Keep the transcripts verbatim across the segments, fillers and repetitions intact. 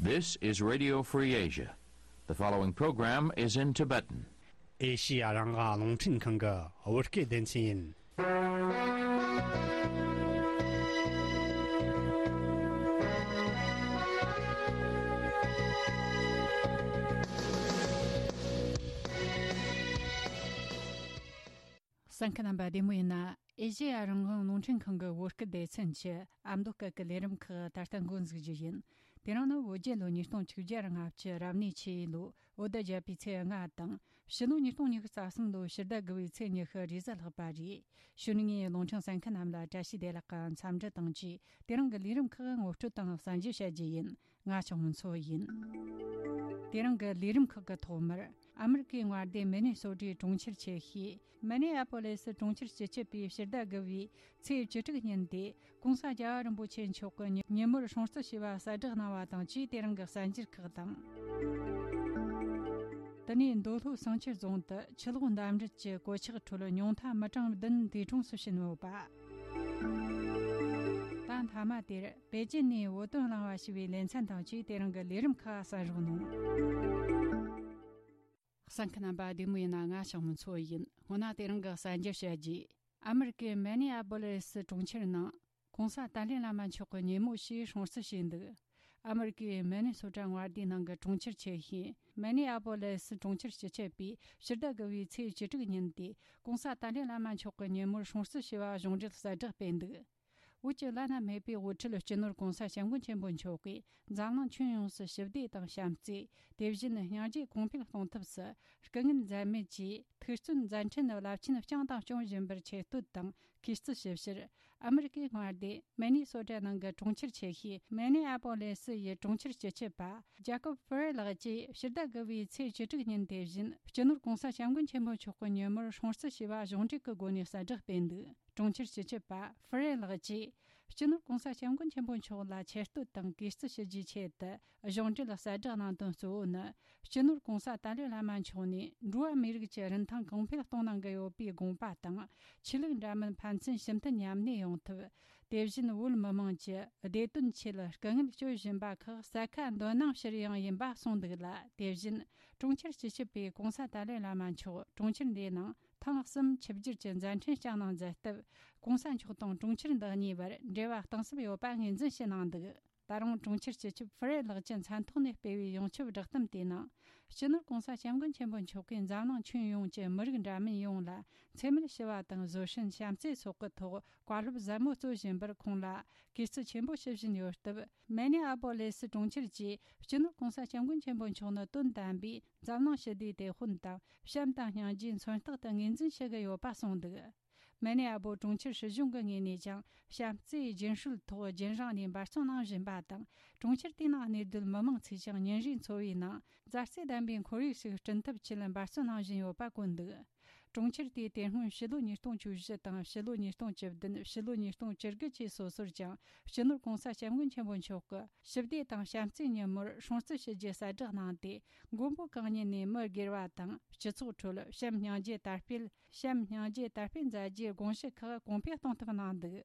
This is Radio Free Asia. The following program is in Tibetan. ཨེ་ཤི་ཡ་རང་དབང་རླུང་འཕྲིན་ཁང་གི་བོད་སྐད་སྡེ་ཚན་ཡིན། གསན་མཁན་རྣམ་པ་བདེ་མོ་ཡིན་ན། ཨེ་ཤེ་ཡ་རང་དབང་རླུང་འཕྲིན་ཁང་གི་བོད་སྐད་སྡེ་ཚན་གྱི་ཨ་མདོ་སྐད་ཀྱི་ལས་རིམ་ཁག་ད་ལྟ་འགོ་འཛུགས་རྒྱུ་ཡིན། དེ་རིང་ནི་བོད་རྒྱལ་ལོ་ཉིས་སྟོང་བཅུ་བརྒྱ་ལྔ་བཅུ་རབ་གནས་ཆུ་ཡོས་ལོའི་བོད་ཟླ་བརྒྱད་པའི་ཚེས་ལྔ་དང་། ཕྱི་ལོ་ཉིས་སྟོང་ཉི་ཤུ་རྩ་གསུམ་ལོའི་ཕྱི་ཟླ་དགུ་བའི་ཚེས་ཉི་ཤུ་རེས་གཟའ་ལྷག་པ་རེད། གཞུག་ནས་རླུང་འཕྲིན་གསན་མཁན་རྣམས་ལ་བཀྲ་ཤིས་བདེ་ལེགས་ཀྱི་འཚམས་འདྲི་དང་བཅས། དེ་རིང་གི་ལས་རིམ་ཁག་ངོ་སྤྲོད་དང་གསན་རྒྱུ་བྱ་རྒྱུ་ཡིན། ང་ཆོས་མོན་མཚོ་ཡིན། དེ་རིང་གི་ལས་རིམ་ཁག་གི་ཐོག་མར། ཨ་མི་རི་ཀའི་མངའ་སྡེ་མི་ནི་སོ་ཊའི་གྲོང་ཁྱེར་ཆེ་ཤོས་མི་ནི་ཨ་པོ་ལེ་སི་གྲོང་ཁྱེར་སྤྱི་ཁྱབ་པས་ཕྱི་ཟླ་དགུ་བའི་ཚེས་བཅུ་དྲུག་ཉིན་ཏེ། ྋགོང་ས་རྒྱལ་བ་རིན་པོ་ཆེ་མཆོག་གི་ཉིན་མོར་སྲུང་བརྩི་ཞུས་པ་གསལ་བསྒྲགས་གནང་བ་དང་བཅས། དེ་རིང་གི་གསར་འགྱུར་ཁག་དང་། དེ་ནས་མདོ་སྨད་བསང་ཆུ་རྫོང་དུ་ཆུ་ལོག་འདམ་རུད་ཀྱི་གོད་ཆག་ཁྲོད་ཉུང་མཐའ་མི་གྲངས་བདུན་འདས་གྲོངས་སུ་ཕྱིན་ཡོད་པ། ད་མཐའ་མ་དེར་པེ་ཅིན་ནས་བོད་དོན་གླེང་བ་ཞེས་པའི་ལེ་ཚན་དང་བཅས། དེ་རིང་གི་ལས་རིམ་ཁག་གསན་རོགས་གནང་། གསན་མཁན་རྣམ་པ་བདེ་མོ་ཡིན་ན། ང་ཆོས་མོན་མཚོ་ཡིན། སྔོན་ན་དེ་རིང་གི་གསར་འགྱུར་བཤད་རྒྱུ། ཨ་མི་རི་ཀའི་མི་ནི་ཨ་པོ་ལེ་སི་གྲོང་ཁྱེར་ནང་ྋགོང་ས་ཏཱ་ལའི་བླ་མ་མཆོག་གི་ཉིན་མོ་ཞེས་སྲུང་བརྩི་བྱས་འདུག་ཨ་མི་རི་ཀའི་མི་ནི་སོ་ཊ་མངའ་སྡེའི་ནང་གི་གྲོང་ཁྱེར་ཆེ་ཤོས་མི་ནི་ཨ་པོ་ལེ་སི་གྲོང་ཁྱེར་སྤྱི་ཁྱབ་པས་ཕྱི་ཟླ་དགུ་བའི་ཚེས་བཅུ་དྲུག་ཉིན་ཏེ། ྋགོང་ས་ཏཱ་ལའི་བླ་མ་མཆོག་གི་ཉིན་མོར་སྲུང་བརྩི་ཞུས་པ་གཞུང་འབྲེལ་གསལ་བསྒྲགས་སྤེལ་འདུག་བོད་ཀྱི་བླ་ན་མེད་པའི་དབུ་ཁྲིད་སྤྱི་ནོར་ྋགོང་ས་སྐྱབས་མགོན་ཆེན་པོ་མཆོག་གིས་འཛམ་གླིང་ཁྱོན་ཡོངས་སུ་ཞི་བདེ་དང་བྱམས་བརྩེ། དེ་བཞིན་སྙིང་རྗེ་གོང་འཕེལ་གཏོང་ཐབས་སུ་སྐུ་ངལ་འཛེམས་མེད་ཀྱིས་ཐུགས་བརྩོན་མཛད་འཕྲིན་རླབས་ཆེན་བསྐྱངས་དང་སྐྱོང་བཞིན་པར་ཆེ་བསྟོད་དང་གུས་བརྩི་ཞུ་ཕྱིར། ཨ་མི་རི་ཀའི་མངའ་སྡེ་མི་ནི་སོ་ཊ་ནང་གི་གྲོང་ཁྱེར་ཆེ་ཤོས་མི་ནི་ཨ་པོ་ལེ་སི་ཡི་གྲོང་ཁྱེར་སྤྱི་ཁྱབ་པ་ཇ་ཀོབ་ཧྥེ་རེ་ལགས་ཀྱིས་ཕྱི་ཟླ་དགུ་བའི་ཚེས་བཅུ་དྲུག་ཉིན་དེ་བཞིན་སྤྱི་ནོར་ྋགོང་ས་སྐྱབས་མགོན་ཆེན་པོ་མཆོག་གི་ཉིན་མོར་སྲུང་བརྩི་ཞུས་པ་གཞུང་འབྲེལ་གྱི་སྒོ་ནས་གསལ་བསྒྲགས་སྤེལ་འདུག་གྲོང་ཁྱེར་སྤྱི་ཁྱབ་པ་ཧྥེ་རེ་ལགས་ཀྱིས་སྤྱི་ནོར་ྋགོང་ས་སྐྱབས་མགོན་ཆེན་པོ་མཆོག་ལ་ཆེ་བསྟོད་དང་གུས་བརྩི་ཞུ་རྒྱུའི་ཆེད་དུ་གཞུང་འབྲེལ་གསལ་བསྒྲགས་གནང་དོན་གཙོ་བོ་ནི། སྤྱི་ནོར་ྋགོང་ས་ཏཱ་ལའི་བླ་མ་མཆོག་ནས་འགྲོ་བ་མིའི་རིགས་ཀྱི་རིན་ཐང་གོང་འཕེལ་གཏོང་གནང་གི་ཡོད་པའི་དགོངས་པ་དང་། ཆོས་ལུགས་འདྲ་མིན་ཕན་ཚུན་ཞི་མཐུན་མཉམ་གནས་ཡོང་ཐབས། དེ་བཞིན་བོད་མི་མང་གྱི་བདེ་དོན་ཆེད་དཀའ་ངལ་སྤྱོད་བཞིན་པ་ཁག་ས་ཁ་འདོད་སྣང་ཕྱིར་ཡང་ཡིན་པ་གསུངས་འདུག་ལ། དེ་བཞིན་གྲོང་ཁྱེར་སྤྱི་ཁྱབ་པས་ྋགོང་ས་ཏཱ་ལའི་བླ་མ་མཆོག་གྲོང་ཁྱེར་འདིའི་ནང་ཐེངས་གསུམ་ཆིབས་བསྒྱུར་གྱི་མཛད་འཕྲིན་བསྐྱངས་གནང་མཛད་སྟབས། ྋགོང་ས་མཆོག་དང་གྲོང་ཁྱེར་འདི་གཉིས་བར་འབྲེལ་བ་གཏིང་ཟབ་ཡོད་པ་ངོས་འཛིན་ཞུ་གནང་འདུག་ད་རུང་གྲོང་ཁྱེར་སྤྱི་ཁྱབ་ཧྥི་རེ་ལགས་ཀྱི་མཚན་ཐོག་ནས་སྤེལ་བའི་ཡོངས་ཁྱབ་བསྒྲགས་གཏམ་དེའི་ནང་། སྤྱི་ནོར་ྋགོང་ས་སྐྱབས་མགོན་ཆེན་པོ་མཆོག་གིས་འཛམ་གླིང་ཁྱོན་ཡོངས་ཀྱི་མི་རིགས་འདྲ་མིན་ཡོངས་ལ་འཚེ་མེད་ཞི་བ་དང་བཟོད་བསྲན་བྱམས་བརྩེ་སོགས་ཀྱི་ཐོག་བཀའ་སློབ་ཟབ་མོ་སྩོལ་བཞིན་པར་ཁོང་ལ་གུས་བརྩི་ཆེན་པོ་ཞུ་བཞིན་ཡོད་སྟབས། མི་ནི་ཨ་པོ་ལེ་སི་གྲོང་ཁྱེར་གྱིས་སྤྱི་ནོར་ྋགོང་ས་སྐྱབས་མགོན་ཆེན་པོ་མཆོག་ནི་དོན་དམ་པའི་འཛམ་གླིང་ཞི་བདེའི་དེད་དཔོན་དང་། བྱམས་དང་སྙིང་རྗེའི་མཚོན་རྟགས་དུ་ངོས་འཛིན་ཞུ་གི་ཡོད་པ་གསུངས་འདུག་མི་ནི་ཨ་པོ་གྲོང་ཁྱེར་སྲིད་གཞུང་གི་ངོས་ནས་ཀྱང་བྱམས་བརྩེའི་རྒྱུན་སྲོལ་ཐོག་རྒྱུན་རིང་ནས་འབད་བརྩོན་གནང་བཞིན་པ་དང་། གྲོང་ཁྱེར་དེའི་ནང་གནས་སྡོད་མི་མང་ཚོས་ཀྱང་ཉིན་རེའི་འཚོ་བའི་ནང་མཛའ་བརྩེ་ལྡན་པའི་ཁོར་ཡུག་ཞིག་བསྐྲུན་ཐབས་ཆེད་འབད་བརྩོན་གནང་བཞིན་ཡོད་པ་བཀོད་འདུག་གྲོང་ཁྱེར་དེས་དེ་སྔོན་ཕྱི་ལོ་ཉིས་སྟོང་བཅུ་བཞི་དང་ཕྱི་ལོ་ཉིས་སྟོང་བཅུ་བདུན། ཕྱི་ལོ་ཉིས་སྟོང་བཅུ་དགུ་བཅས་སོ་སོར་ཀྱང་སྤྱི་ནོར་ྋགོང་ས་སྐྱབས་མགོན་ཆེན་པོ་མཆོག་གི་ཞི་བདེ་དང་བྱམས་བརྩེའི་ཉིན་མོར་སྲུང་བརྩི་ཞུ་རྒྱུ་གསལ་བསྒྲགས་གནང་སྟེ། མགོན་པོ་གང་ཉིད་ནས་མི་སྒེར་བ་དང་སྤྱི་ཚོགས་ཁྲོད་བྱམས་སྙིང་རྗེ་དར་སྤེལ། བྱམས་སྙིང་རྗེ་དར་སྤེལ་མཛད་རྒྱུའི་དགོངས་གཞི་ཁག་གོང་འཕེལ་གཏོང་ཐབས་གནང་འདུག་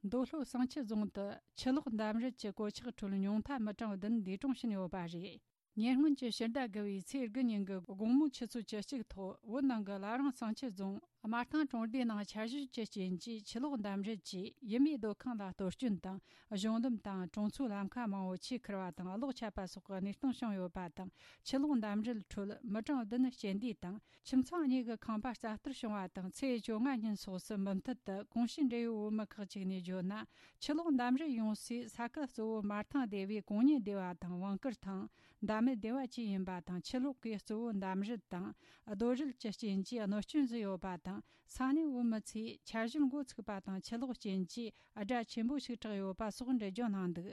མདོ་སྨད་བསང་ཆུ་རྫོང་དུ་ཆུ་ལོག་འདམ་རུད་ཀྱི་གོད་ཆག་ཁྲོད་ཉུང་མཐའ་མི་གྲངས་བདུན་འདས་གྲོངས་ཕྱིན་ཡོད་པ་རེད། ཉེ་སྔོན་གྱི་ཕྱི་ཟླ་དགུ་བའི་ཚེས་དགུ་ཉིན་གྱི་དགོང་མོའི་ཆུ་ཚོད་བཅུ་གཅིག་ཐོག་བོད་ནང་གི་བླ་བྲང་བསང་ཆུ་རྫོང་སྨར་ཐང་གྲོང་སྡེའི་ནང་ཆར་ཞོད་ཀྱི་རྐྱེན་གྱིས་ཆུ་ལོག་འདམ་རུད་ཀྱིས་ཡུལ་མིའི་སྡོད་ཁང་ལ་གཏོར་སྐྱོན་དང་། གཞུང་ལམ་དང་གྲོང་ཚོའི་ལམ་ཁ་མང་བོ་ཆུས་ཁུར་བ་དང་གློག་ཆད་པ་སོགས་ཀྱི་གནས་སྟངས་བྱུང་ཡོད་པ་དང་། ཆུ་ལོག་འདམ་རུད་ཁྲོད་མི་གྲངས་བདུན་སྐྱེ་འདས་དང་། ཁྱིམ་ཚང་གཉིས་ཀྱི་ཁང་པ་རྩ་གཏོར་བྱུང་བ་དང་། ཚེས་བཅོ་ལྔ་ཉིན་སོགས་སུ་མུ་མཐུད་དུ་གོང་ཞུས་འབྲེལ་ཡོད་བོད་མི་ཁག་ཅིག་ནས་བརྗོད་ན། ཆུ་ལོག་འདམ་རུད་ཡོང་སའི་ས་ཁུལ་གཙོ་བོ་སྨར་ཐང་སྡེ་བའི་གོང་ཉེ་སྡེ་བ་དང་བང་དཀར་ཐང་། འདབ་མི་སྡེ་བ་བཅས་ཡིན་པ་དང་། ཆུ་ལོག་གིས་གཙོ་བོ་འདམ་རུད་དང་རྡོ་རུད་ཀྱི་རྐྱེན་གྱིས་གནོད་སྐྱོན་བཟོས་ཡོད་པ་དང་། ས་གནས་བོད་མི་ཚོས་ཆར་ཞོད་འགོ་ཚུགས་པ་དང་། ཆུ་ལོག་རྐྱེན་གྱིས་དགྲ་ཆེན་པོ་ཞིག་གྲགས་ཡོད་པ་སོགས་འགྲེལ་བརྗོད་གནང་འདུག་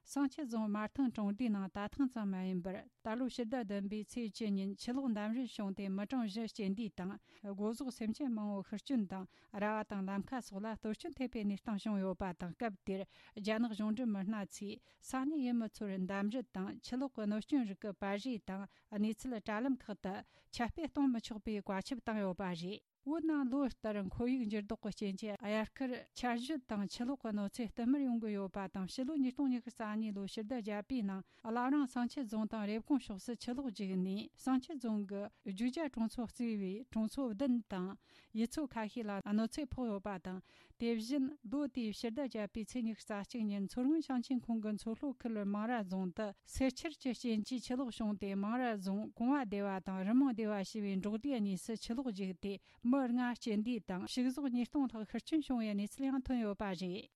བསང་ཆུ་རྫོང་སྨར་ཐང་གྲོང་སྡེའི་ནང་ད་ཐེངས་ཙམ་མ་ཡིན་པར། ད་ལོའི་ཕྱི་ཟླ་བདུན་པའི་ཚེས་བཅུ་ཉིན་ཆུ་ལོག་འདམ་རུད་བྱུང་སྟེ་མི་གྲངས་བཞི་སྐྱེ་འདས་དང་། སྒོ་ཟོག་སེམས་ཅན་མང་བོ་ཤི་སྐྱོན་དང་། ར་བ་དང་ལམ་ཁ་སོགས་ལ་གཏོར་སྐྱོན་ཐེབས་པའི་གནས་སྟངས་བྱུང་ཡོད་པ་དང་། སྐབས་དེར་རྒྱ་ནག་གཞུང་འབྲེལ་མི་སྣ་ཚོས་ས་གནས་ཡུལ་མི་ཚོར་འདམ་རུད་དང་ཆུ་ལོག་གི་གནོད་སྐྱོན་རིགས་ཀྱི་པར་རིས་དང་། གནས་ཚུལ་དྲ་ལམ་ཁག་ཏུ་ཁྱབ་སྤེལ་གཏོང་མི་ཆོག་པའི་བཀའ་ཁྱབ་བཏང་ཡོད་པ་རེད། བོད་ནང་ལོ་ལྟར་ཁོར་ཡུག་འགྱུར་ལྡོག་གི་རྐྱེན་གྱིས་དབྱར་ཁར་ཆར་ཞོད་དང་ཆུ་ལོག་གི་གནོད་འཚེ་བསྟུད་མར་ཡོང་གི་ཡོད་པ་དང་། ཕྱི་ལོ་ཉིས་སྟོང་ཉི་ཤུ་རྩ་གཉིས་ལོའི་ཕྱི་ཟླ་བརྒྱད་པའི་ནང་བླ་བྲང་བསང་ཆུ་རྫོང་དང་རེབ་གོང་ཕྱོགས་སུ་ཆུ་ལོག་རྒྱུག་ནས་བསང་ཆུ་རྫོང་གི་རྒྱུག་ཆ་གྲོང་ཚོ་གཙོས་པའི་གྲོང་ཚོ་བདུན་དང་ཡུལ་ཚོ་ཁ་ཤས་ལ་གནོད་འཚེ་ཕོག་ཡོད་པ་དང་། དེ་བཞིན་ལོ་དེའི་ཕྱི་ཟླ་བརྒྱད་པའི་ཚེས་ཉི་ཤུ་རྩ་གཅིག་ཉིན་མཚོ་སྔོན་ཞིང་ཆེན་ཁོངས་ཀྱི་མཚོ་ལྷོ་ཁུལ་མང་ར་རྫོང་དུ་སེར་ཆུ་གི་རྐྱེན་གྱིས་ཆུ་ལོག་བྱུང་སྟེ། མང་ར་རྫོང་གོང་བ་སྡེ་བ་དང་རི་མོ་སྡེ་བ་ཞེས་པའི་འབྲོག་སྡེ་གཉིས་སུ་ཆུ་ལོག་རྒྱུག་སྟེ། མི་ལྔ་སྐྱེ་འདས་དང་ཕྱུགས་ཟོག་ཉིས་སྟོང་ལྷག་ཤི་རྐྱེན་བྱུང་བའི་གནས་ཚུལ་ཡང་ཐོན་ཡོད་པ་རེད།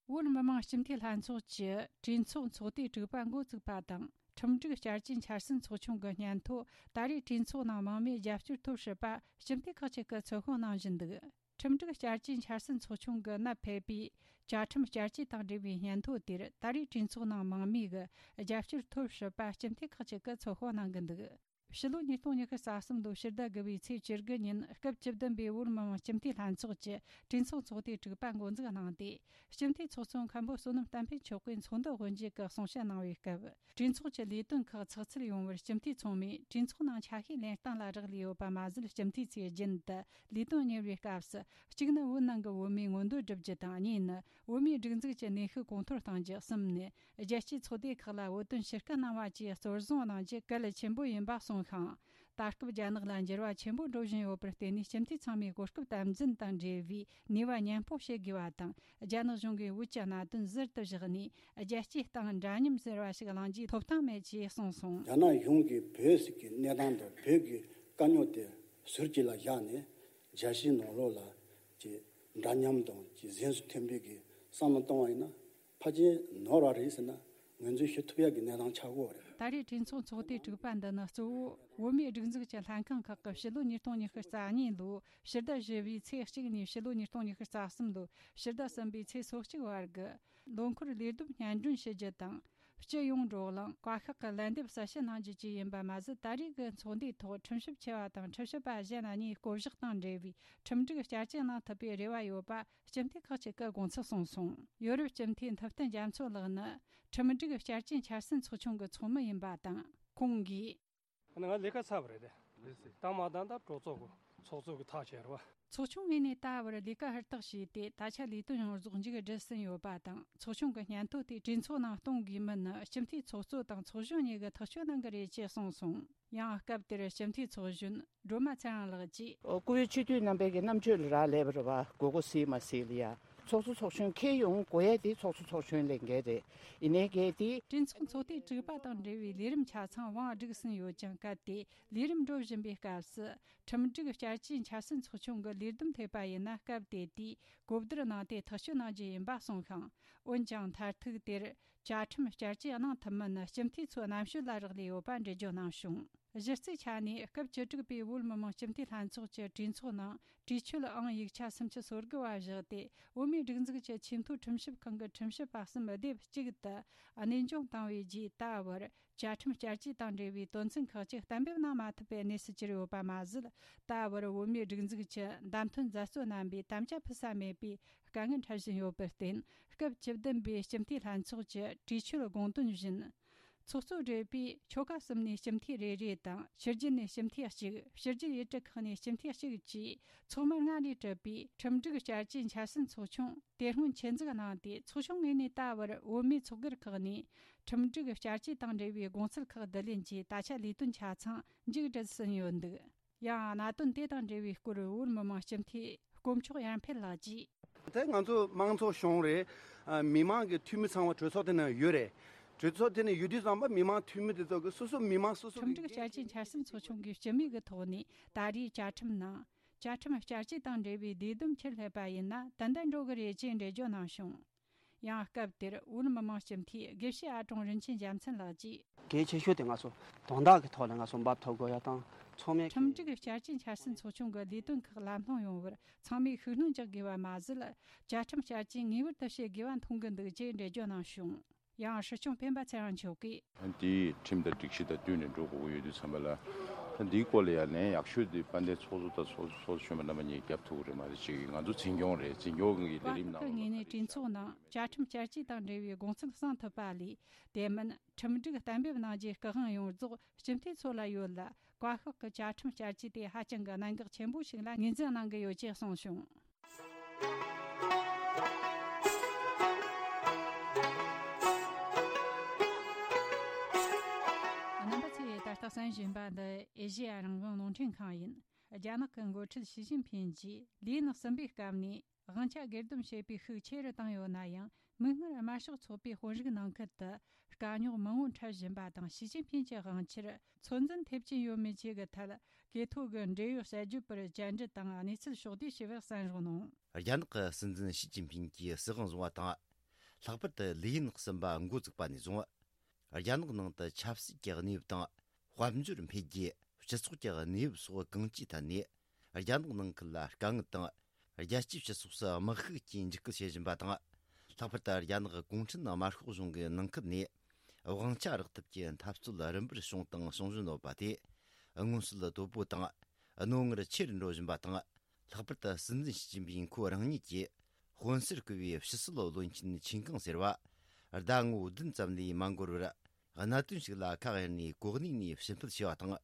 བོད་མི་མང་སྤྱི་འཐུས་ལྷན་ཚོགས་ཀྱི་གྲོས་ཚོགས་ཚོགས་དུས་དྲུག་པ་འགོ་བཙུགས་པ་དང་། ཁྲིམས་སྒྲིག་བསྐྱར་བཅོས་འཆར་ཟིན་ཚོགས་ཆུང་གི་སྙན་ཐོ་ད་རེས་གྲོས་ཚོགས་ནང་མང་མོས་རྒྱབ་སྐྱོར་ཐོབ་སྲིད་པ་སྤྱི་འཐུས་ཁག་ཅིག་གིས་ཚོད་དཔག་གནང་བཞིན་འདུག་ཁྲིམས་སྒྲིག་བསྐྱར་བཅོས་འཆར་ཟིན་ཚོགས་ཆུང་གིས་ནད་ཕོག་པའི་བཅའ་ཁྲིམས་བསྐྱར་བཅོས་དང་འབྲེལ་བའི་སྙན་ཐོ་དེར་ད་རེས་གྲོས་ཚོགས་ནང་མང་མོས་ཀྱི་རྒྱབ་སྐྱོར་ཐོབ་སྲིད་པ་སྤྱི་འཐུས་ཁག་ཅིག་གིས་ཚོད་དཔག་གནང་གི་འདུག་ཕྱི་ལོ་ཉིས་སྟོང་ཉི་ཤུ་རྩ་གསུམ་ལོའི་ཕྱི་ཟླ་དགུ་པའི་ཚེས་བཅུ་དགུ་ཉིན་སྐབས་བཅུ་བདུན་པའི་བོད་མི་མང་སྤྱི་འཐུས་ལྷན་ཚོགས་ཀྱི་གྲོས་ཚོགས་ཚོགས་དུས་དྲུག་པ་འགོ་འཛུགས་གནང་སྟེ། སྤྱི་འཐུས་ཚོགས་གཙོ་མཁན་པོ་བསོད་ནམས་བསྟན་འཕེལ་མཆོག་གིས་ཚོགས་འདུ་དབུ་འབྱེད་ཀྱི་གསུང་བཤད་གནང་བའི་སྐབས། གྲོས་ཚོགས་ཀྱི་ལས་དོན་ཁག་ཚགས་ཚུད་ཡོང་བར་སྤྱི་འཐུས་ཚང་མས་གྲོས་ཚོགས་ནང་ཆ་ཤས་ལེན་སྟངས་ལ་རག་ལས་ཡོད་པ་མ་ཟད། སྤྱི་འཐུས་ཚོས་རྒྱུན་དུ་ལས་དོན་གཉེར་བའི་སྐབས་སུ། གཅིག་ནི་བོད་ནང་གི་བོད་མིའི་མངོན་འདོད་བསྒྲུབ་རྒྱུ་དང་། གཉིས་ནི་བོད་མིའི་སྒྲིག་འཛུགས་ཀྱི་གནས་ཤུགས་གོང་མཐོར་གཏོང་རྒྱུ། གསུམ་ནི་རྒྱལ་སྤྱིའི་ཚོགས་སྡེ་ཁག་ལ་བོད་དོན་ཕྱིར་སྐུལ་གནང་བ་བཅས་གཙོར་བཟུང་གནང་རྒྱུ་གལ་ཆེན་པོ་ཡིན་པ་གསུངས་ཤིང་། ད་སྐབས་རྒྱ་ནག་ལ་འགྱུར་བ་ཆེན་པོ་འགྲོ་བཞིན་ཡོད་པར་བརྟེན་ནས། སྤྱི་འཐུས་ཚང་མས་གོ་སྐབས་དམ་འཛིན་དང་འབྲེལ་བའི་ནུས་པ་མཉམ་སྤུངས་བྱེད་དགོས་པ་དང་། རྒྱ་ནག་གཞུང་གིས་བོད་ཀྱི་གནད་དོན་ཟུར་དུ་བཞག་ནས། རྒྱལ་སྤྱིའི་སྟེང་འདྲ་མཉམ་ཟེར་བ་ཞིག་གླེང་རྒྱུའི་ཐོབ་ཐང་མེད་ཅེས་གསུངས་སོང་། རྒྱ་ནག་གཞུང་གིས་བོད་ཟེར་གྱི་གནས་སྟངས་དང་བོད་ཀྱི་དཀའ་རྙོག་དེ་ཟུར་གཅིག་ལ་བཞག་ནས། རྒྱལ་སྤྱིའི་ནང་ལོགས་ལ་ཅིག་འདྲ་མཉམ་དང་ཅིག་གཟེངས་སུ་ཐོན་པའི་གི་བསམ་བློ་གཏོང་བ་ཡིན་ན། ཕལ་ཆེར་ནོར་བ་རེད་ཟེར་ན་ངོས་འཛིན་ཞུ་ཐུབ་ཡག་གི་གནས་སྟངས་ཆགས་ཀྱི་ཡོད་རེད། ད་རེས་གྲོས་ཚོགས་ཚོགས་དུས་དྲུག་པ་འདི་ནི་གཙོ་བོ་བོད་མིའི་སྒྲིག་འཛུགས་ཀྱི་ལྷན་ཁང་ཁག་གི་ཕྱི་ལོ་ཉིས་སྟོང་ཉི་ཤུ་རྩ་གཉིས་ལོའི་ཕྱི་ཟླ་བཞི་པའི་ཚེས་གཅིག་ནས་ཕྱི་ལོ་ཉིས་སྟོང་ཉི་ཤུ་རྩ་གསུམ་ལོའི་ཕྱི་ཟླ་གསུམ་པའི་ཚེས་སོ་གཅིག་བར་གྱི་ལོ་འཁོར་ལས་བསྡོམས་སྙན་སྒྲོན་ཞུ་རྒྱུ་དང་། སྤྱི་ཡོངས་བགྲོ་གླེང་། བཀའ་ཤག་གི་ལན་འདེབས་གསལ་བཤད་གནང་རྒྱུ་བཅས་ཡིན་པ་མ་ཟད། ད་རེས་ཀྱི་ཚོགས་འདུའི་ཐོག་ཁྲིམས་ཞིབ་ཆེ་བ་དང་ཁྲིམས་ཞིབ་པ་གཞན་གཉིས་བསྐོ་གཞག་དང་འབྲེལ་བའི་ཁྲིམས་སྒྲིག་བསྐྱར་བཅོས་གནང་ཐུབ་པའི་རེ་བ་ཡོད་པ་སྤྱི་འཐུས་ཁག་ཅིག་གིས་དགོངས་ཚུལ་གསུངས་སོང་། ཡོ་རོབ་སྤྱི་འཐུས་ཐུབ་བསྟན་རྒྱ་མཚོ་ལགས་ནི་ཁྲིམས་སྒྲིག་བསྐྱར་བཅོས་འཆར་ཟིན་ཚོགས་ཆུང་གི་ཚོགས་མི་ཡིན་པ་དང་། ཁོང་གིས། ང་ལས་ཀ་ཚར་བ་རེད། ད་མ་ད་ད་གྲོས་ཚོགས་ཀྱི་ཚོགས་གཙོ་གི་ཐག་བཅད་རེད་བ། ཚོགས་ཆུང་ངོས་ནས་ད་བར་ལས་ཀ་ཧུར་ཐག་བྱས་ཏེ། ད་ཆ་ལས་དོན་ཡོངས་རྫོགས་མཇུག་བསྒྲིལ་ཟིན་ཡོད་པ་དང་། ཚོགས་ཆུང་གི་སྙན་ཐོ་དེ་གྲོས་ཚོགས་ནང་གཏོང་དགོས་མིན་ནི་སྤྱི་འཐུས་ཚོགས་གཙོ་དང་ཚོགས་གཞོན་གཉིས་ཀྱིས་ཐག་གཅོད་གནང་གི་རེད་ཅེས་གསུངས་སོང་། ཡང་སྐབས་དེར་སྤྱི་འཐུས་ཚོགས་གཞོན་སྒྲོལ་མ་ཚེ་རིང་ལགས་ཀྱིས། ཨོ། བཀུར་འོས་སྤྱི་འཐུས་རྣམ་པས་ཀྱི་རྣམ་དཔྱོད་ལ་རག་ལས་པ་རེད་བ། དགོས་མཁོ་གཟིགས་མ་གཟིགས་ལ་ཡ། ཚོགས་གཙོ་ཚོགས་གཞོན་འཁྱེར་ཡོང་དགོས་ཡ་དེ་ཚོགས་གཙོ་ཚོགས་གཞོན་ལས་འགན་རེད། ཡིན་ནའི་གལ་ཏེ། གྲོས་ཚོགས་ཚོགས་དུས་དྲུག་པ་དང་འབྲེལ་བའི་ལས་རིམ་ཆ་ཚང་བང་བསྒྲིགས་ཟིན་ཡོད་ཀྱང་། གལ་ཏེ་ལས་རིམ་འགྲོ་བཞིན་པའི་སྐབས་སུ་ཁྲིམས་སྒྲིག་བསྐྱར་བཅོས་འཆར་ཟིན་ཚོགས་ཆུང་གི་ལས་བསྡོམས་ཐེབས་པ་ཡིན་ན། སྐབས་དེ་དུས་གོ་བསྡུར་གནང་སྟེ་ཐག་གཅོད་གནང་རྒྱུ་ཡིན་པ་གསུངས་ཤིང་། འོན་ཀྱང་མཐར་ཐུག་དེར་བཅའ་ཁྲིམས་བསྐྱར་བཅོས་གནང་ཐུབ་མིན་ནི་སྤྱི་འཐུས་ཚོའི་རྣམ་དཔྱོད་ལ་རག་ལས་ཡོད་པ་འགྲེལ་བརྗོད་གནང་བྱུང་། གཞི་རྩའི་ཆ་ནས་སྐབས་བཅུ་དྲུག་པའི་བོད་མི་མང་སྤྱི་འཐུས་ལྷན་ཚོགས་ཀྱི་གྲོས་ཚོགས་ནང་། གྲོས་ཆོད་ཨང་ཡིག་ཆ་སུམ་ཅུ་སོ་དགུ་བ་བཞག་སྟེ། བོད་མིའི་སྒྲིག་འཛུགས་ཀྱི་ཆེས་མཐོའི་ཁྲིམས་ཞིབ་ཁང་གི་ཁྲིམས་ཞིབ་པ་གསུམ་སྡེབ་གཅིག་ཏུ་གནས་དབྱུང་བཏང་བའི་རྗེས། ད་བར་བཅའ་ཁྲིམས་བསྐྱར་བཅོས་དང་འབྲེལ་བའི་དོན་ཚན་ཁག་ཅིག་གཏན་འབེབས་གནང་མ་ཐུབ་པའི་གནས་སུ་གྱུར་ཡོད་པ་མ་ཟད། ད་བར་བོད་མིའི་སྒྲིག་འཛུགས་ཀྱི་བདམས་ཐོན་མཛད་གཙོ་རྣམ་པས་དམ་བཅའ་ཕུལ་ས་མེད་པའི་དཀའ་ངལ་འཕྲད་བཞིན་ཡོད་པར་བརྟེན། སྐབས་བཅུ་བདུན་པའི་སྤྱི་འཐུས་ལྷན་ཚོགས་ཀྱི་གྲོས་ཆོད་དགོངས་དོན་བཞིན། ཚོགས་གཙོ་བགྲེས་པོས་ཆོལ་ཁ་གསུམ་ནས་སྤྱི་འཐུས་རེ་རེ་དང་། ཕྱི་རྒྱལ་ནས་སྤྱི་འཐུས་གཅིག་ཕྱི་རྒྱལ་ཡུལ་གྲུ་ཁག་ནས་སྤྱི་འཐུས་གཅིག་བཅས་ཚོགས་མི་ལྔ་ལས་གྲུབ་པའི་ཁྲིམས་སྒྲིག་བསྐྱར་བཅོས་འཆར་ཟིན་ཚོགས་ཆུང་དེ་སྔོན་ཆེད་འཛུགས་གནང་སྟེ། ཚོགས་ཆུང་ངོས་ནས་ད་བར་བོད་མིའི་ཚོགས་སྒེར་ཁག་ནས་ཁྲིམས་སྒྲིག་བསྐྱར་བཅོས་དང་འབྲེལ་བའི་དགོངས་ཚུལ་ཁག་བསྡུ་ལེན་གྱིས། ད་ཆ་ལས་དོན་ཆ་ཚང་མཇུག་སྒྲིལ་ཟིན་ཡོད་འདུག་ཡང་གནད་དོན་དེ་དང་འབྲེལ་བའི་སྐོར་བོད་མི་མང་སྤྱི་འཐུས་དཀོན་མཆོག་ཡར་འཕེལ་ལགས་ཀྱིས། ད་ང་ཚོ་དམངས་གཙོ་གཞུང་རེད། ཨ། མི་མང་གི་འཐུས་མི་ཚང་མ་གྲོས་ཚོགས་དེ་ནང་ཡོད་རེད། གྲོས་ཚོགས་དེ་ནང་ཡོད་དུས་ཙམ་པ་མི་མང་འཐུས་མི་དེ་ཚོ་གི་སོ་སོ་མི་མང་སོ་སོ་ཁྲིམས་སྒྲིག་བསྐྱར་བཅོས་འཆར་ཟིན་ཚོགས་ཆུང་གིས་སྤྱི་མོས་ཀྱི་ཐོག་ནས་ད་རེས་བཅའ་ཁྲིམས་ནང་བཅའ་ཁྲིམས་བསྐྱར་བཅོས་དང་འབྲེལ་བའི་ལས་བསྡོམས་ཕྱིར་སླེབས་པ་ཡིན་ན་ཏན་ཏན་འགྲོ་གི་རེད་ཅེས་འགྲེལ་བརྗོད་གནང་བྱུང་། ཡང་སྐབས་དེར་བོད་མི་མང་སྤྱི་འཐུས་དགེ་བཤེས་ཨ་ཀྲུང་རིན་ཆེན་རྒྱལ་མཚན་ལགས་ཀྱིས། གལ་ཆེ་ཤོས་དེ་ང་ཚོ་དོན་དག་གི་ཐོག་ལ་ང་ཚོ་འབབ་ཐོབ་དགོས་ཡ་དང་། ཚང་མས། ཁྲིམས་སྒྲིག་བསྐྱར་བཅོས་འཆར་ཟིན་ཚོགས་ཆུང་གི་ལས་དོན་ཁག་ལམ་ལྷོང་ཡོང་བར་ཚང་མས་ཤུགས་སྣོན་རྒྱག་དགོས་པ་མ་ཟད། བཅའ་ཁྲིམས་བསྐྱར་བཅོས་ངེས་པར་དུ་བྱེད་དགོས་པ་མཐོང་གི་འདུག་ཅེས་འགྲེལ་བརྗོད་གནང་བྱུང་། ཡང་སྲིད་སྐྱོང་སྤེན་པ་ཚེ་རིང་མཆོག་གིས། དེའི་ཁྲིམས་དང་སྒྲིག་གཞི་དང་བསྟུན་ནས་འགྲོ་དགོས་ཀྱི་ཡོད་དུས་ཙམ་པ་ལ། ད་འདིའི་སྐོར་ལ་ཡང་ལན་ཡག་ཤོས་དེ་དཔལ་ལྡན་ཚོགས་གཙོ་དང་ཚོགས་གཙོ་གཞོན་པ་རྣམ་པ་གཉིས་རྒྱབ་ཐུབ་ཀྱི་རེད་མ་རེད་ཅེས། ང་ཚོ་འཛིན་སྐྱོང་རེད། འཛིན་སྐྱོང་གི་ལས་རིམ་ནང་། བཀའ་ཤག་གི་ངོས་ནས་གྲོས་ཚོགས་ནང་བཅའ་ཁྲིམས་བསྐྱར་བཅོས་དང་འབྲེལ་བའི་དགོངས་ཚུལ་གསུང་ཐུབ་པ་ལས། དེ་མིན་ཁྲིམས་སྒྲིག་གཏན་འབེབས་གནང་རྒྱུའི་སྐུ་དབང་ཡོངས་རྫོགས་སྤྱི་འཐུས་ཚོ་ལ་ཡོད་ལ། བཀའ་ཤག་གི་བཅའ་ཁྲིམས་བསྐྱར་བཅོས་དེ་ཧ་ཅང་གི་གནད་འགག་ཆེན་པོ་ཞིག་ལ་ངོས་འཛིན་གནང་གི་ཡོད་ཅེས་གསུངས་བྱུང་། རྣམ་པ་ཚོས་ད་ལྟ་གསན་བཞིན་པ་འདི་ཨེ་ཤེ་ཡ་རང་དབང་རླུང་འཕྲིན་ཁང་ཡིན། རྒྱ་ནག་གི་འགོ་ཁྲིད་ཞི་ཅིན་ཕིན་གྱིས་ལི་ཡིན་གསུམ་པའི་སྐབས་ནས་དབང་ཆ་སྒེར་སྡོམ་བྱེད་པའི་ཤུགས་ཆེ་རུ་བཏང་ཡོད་ན་ཡང་། མིག་སྔར་དམར་ཤོག་ཚོགས་པའི་དཔོན་རིགས་ནང་ཁུལ་དུ་དཀའ་རྙོག་མང་བོ་འཕྲད་བཞིན་པ་དང་། ཞི་ཅིན་ཕིན་གྱི་དབང་ཆར་ཚོད་འཛིན་ཐེབས་ཀྱིན་ཡོད་མེད་བཅས་ཀྱི་ཐད་གྲོས་ཐོག་གི་འབྲེལ་ཡོད་དཔྱད་བརྗོད་པར་བཅར་འདྲི་དང་གནས་ཚུལ་ཕྱོགས་བསྡུས་བྱས་པར་གསན་རོགས་གནང་། རྒྱ་ནག་གི་སྲིད་འཛིན་ཞི་ཅིན་ཕིན་གྱིས་སྲིད་དབང་བཟུང་བ་དང་། ལྷག་པར་དུ་ལི་ཡིན་གསུམ་པ་འགོ་བཙུགས་པ་ནས་བཟུང་། རྒྱ་ནག་ནང་དུ་ཆབ་སྲིད་ཀྱི་གནས་བབ་དང་། དཔལ་འབྱོར་འཕེལ་རྒྱས། སྤྱི་ཚོགས་ཀྱི་གནས་བབ་སོགས་གང་ཅིའི་ཐད་ནས། རྒྱ་ནག་ནང་ཁུལ་ལ་དཀའ་ངལ་དང་། རྒྱལ་སྤྱིའི་སྤྱི་ཚོགས་སུ་དམག་ཤུགས་ཀྱིས་འཇིགས་སྐུལ་བྱེད་བཞིན་པ་དང་། ལྷག་པར་དུ་རྒྱ་ནག་གུང་ཁྲན་དམར་ཤོག་གཞུང་གི་ནང་ཁུལ་ནས་དབང་ཆ་རག་ཐབས་ཀྱི་འཐབ་རྩོད་རིམ་པར་བྱུང་དང་འབྱུང་བཞིན་ཡོད་པ་དེ། མངོན་གསལ་དོད་པོ་དང་རྣོ་ངར་ཆེ་རུ་འགྲོ་བཞིན་པ་དང་། ལྷག་པར་དུ་སྲིད་འཛིན་ཞི་ཅིན་ཕིན་ཁོ་རང་ཉིད་ཀྱིས་དཔོན་གསར་བསྐོས་པའི་ཕྱི་སྲིད་བློན་ཆེན་ཆིན་ཀང་ཟེར་བ། ཟླ་ངོ་བདུན་ཙམ་ལས་མ་འགོར་བར། གནད་དོན་ཞིག་ལ་ཁ་གཡར་ནས་གོ་གནས་ནས་ཕྱིར་འབུད་བྱས་པ་དང་།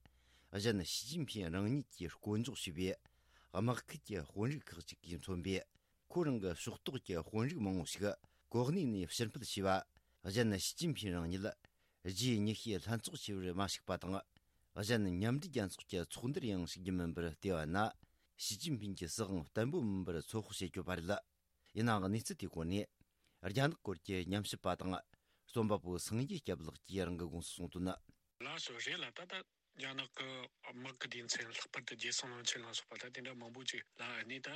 གཞན་ཞི་ཅིན་ཕིན་རང་ཉིད་ཀྱིས་བསྐོ་འཇོག་བྱས་པའི་དམག་ཁུལ་གྱི་དཔོན་རིགས་ཁག་ཅིག་གིས་མཚོན་པའི་ཁོ་རང་གི་ཕྱོགས་གཏོགས་ཀྱི་དཔོན་རིགས་མང་བོ་ཞིག་གོ་གནས་ནས་ཕྱིར་འབུད་བྱས་པ། གཞན་ཞི་ཅིན་ཕིན་རང་ཉིད་རྗེས་མྱུལ་ཞིབ་ལྷན་ཚོགས་བྱས་པར་མ་ཞུགས་པ་དང་། གཞན་མཉམ་འབྲེལ་རྒྱལ་ཚོགས་ཀྱི་ཚོགས་འདུར་ཡང་ཞུགས་རྒྱུ་མིན་པར་བལྟས་པ་ན། ཞི་ཅིན་ཕིན་གྱི་སྲིད་དབང་བརྟན་པོ་མིན་པར་ཚོད་དཔག་བྱེད་དགོས་པ་རེད། ཡིན་ནའང་གནས་ཚུལ་དེའི་སྐོར་ནས་རྒྱ་ནག་སྐོར་གྱི་ཉམས་ཞིབ་པ་དང་རྩོམ་པ་པོ་སངས་རྒྱས་སྐྱབས་ལགས་ཀྱིས་རང་གི་དགོངས་སུ་གསུངས་དོན། ལགས་སོ། རེད་ལ། ད་ལྟ་རྒྱ་ནག་གི་དམག་གི་སྡེ་ཚན། ལྷག་པར་དུ་རྒྱལ་སྲུང་བློན་ཆེན་ལ་སོགས་པ། ད་དེ་འདྲ་མང་པོ་ཅིག་ལ་ཨ་ནི་ད་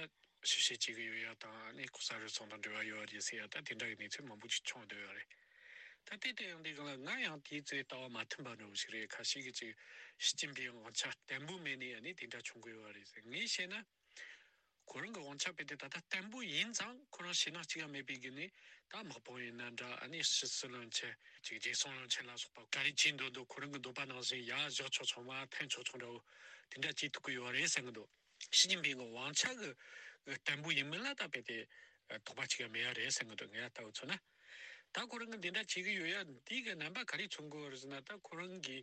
ཞིབ་བཤེར་བྱེད་ཀྱི་ཡོད་ཡ་དང་། ཨ་ནི་ལྐོག་ཟ་རུལ་སུངས་དང་འབྲེལ་བ་ཡོད་རེད་ཟེར་ཡ། ད་དེ་འདྲ་གི་གནས་ཚུལ་མང་པོ་ཅིག་བྱུང་བསྡད་ཡོད་རེད། ད་དེ་ལྟ་ཡོང་དུས་སྒང་ལ་ང་ཡང་དེའི་ཚོའི་ལྟ་བ་མ་མཐུན་པ་འདྲ་བོ་ཞིག་རེད། ཁ་ཤས་ཀྱིས་ཅིག་ཞི་ཅིན་ཕིང་དབང་ཆ་བརྟན་པོ་མེད་ནས་ཨ་ནི་དེ་འདྲ་བྱུང་གི་ཡོད་རེད་ཟེར། ངས་བཤད་ན། ཁོ་རང་གི་དབང་ཆ་དཔེ་དེ་ད་ལྟ་བརྟན་པོ་ཡིན་ཙང་། ཁོ་རང་ཞེད་སྣང་གཅིག་ཡང་མེད་པའི་སྒོ་ནས། ད་དམག་དཔུང་ཡིན་ན་འདྲ། ཨ་ནི་ཕྱི་སྲིད་བློན་ཆེན། ཅིག་རྒྱལ་སྲུང་བློན་ཆེན་ལ་སོགས་པ། ག་རེ་བྱེད་འདོད་འདོད། ཁོ་རང་གི་འདོད་པ་ནང་བཞིན་ཡར་བཞག་ཆོག་ཆོག་མར་འཐེན་ཆོག་ཆོག་འདྲ་བོ་དེ་འདྲ་བྱེད་ཐུབ་ཀྱི་ཡོད་རེད་བསམ་གྱི་འདུག་ཞི་ཅིན་ཕིང་གི་དབང་ཆ་གི་བརྟན་པོ་ཡིན་མིན་ལ་ད་དཔེ་དེ་དོགས་པ་གཅིག་ཡང་མེད་ཡ་རེད་བསམ་གྱི་འདུག་ངས་ལྟ་བུ་མཚོན་ན། ད་ཁོ་རང་གི་འདི་འདྲ་བྱེད་ཀྱི་ཡོད་ཡ་འདི་གི་རྣམ་པ་ག་རེ་མཚོན་གྱི་ཡོད་རེད་ཟེར་ན། ད་ཁོ་རང་གི་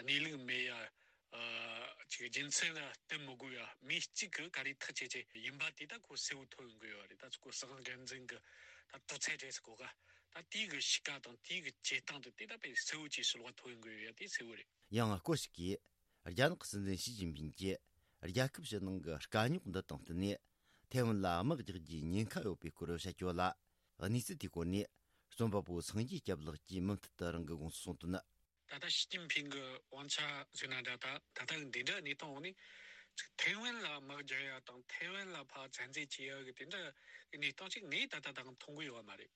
གནས་ལུགས་མེད་ཡ། ཨ། ཅིག་རྒྱུ་མཚན་ལ་བསྟུན་མི་དགོས་ཡ། མི་གཅིག་གིས་ག་རེ་ཐག་བཅད་བྱས་ཡིན་པ་དེ་ད་ཁོ་གསལ་བོ་ཐོན་ཡོང་གི་ཡོད་རེད། ད་ཁོ་སྲིད་དབང་སྒེར་འཛིན་གྱི་ད་དོགས་ཚད་རེད་ཟེར་གོ་ག་ད་དེའི་གི་གཤིས་ཀ་དང་དེའི་གི་བྱེད་སྟངས་དེ་དེ་ད་དཔེ་གསལ་བོ་ཅིག་ཕྱི་ལོགས་ཐོན་ཡོང་གི་ཡོད་ཡ། དེ་གསལ་བོ་རེད། ཡང་སྐོར་ཞིག་གིས་རྒྱ་ནག་སྲིད་འཛིན་ཞི་ཅིན་ཕིང་གིས་རྒྱལ་ཁབ་ཕྱི་ནང་གི་དཀའ་རྙོག་འདི་དང་བསྟུན་ནས་ཐའེ་ཝན་ལ་དམག་རྒྱག་རྒྱུའི་ཉེན་ཁ་ཡོད་པའི་སྐོར་བཤད་ཀྱི་ཡོད་ལ། གནས་ཚུལ་དེའི་སྐོར་ནས་རྩོམ་པ་པོ་སངས་རྒྱས་སྐྱབས་ལགས་ཀྱིས་མུ་མཐུད་དུ་རང་གི་དགོངས་སུ་གསུངས་དོན། ད་ལྟ་ཞི་ཅིན་ཕིང་གི་དབང་ཆ་ཟེར་ན་འདྲ། ད་ད་ལྟ་གི་འདི་འདྲ་གནས་སྟངས་འོག་ནས་ཅིག་ཐའེ་ཝན་ལ་དམག་རྒྱག་ཡ་དང་ཐའེ་ཝན་ལ་ཕར་བཙན་འཛུལ་བྱེད་ཡ་གི་དེ་འདྲ་གི་གནས་སྟངས་ཅིག་ངས་ད་ལྟ་ད་མཐོང་གི་ཡོད་མ་རེད།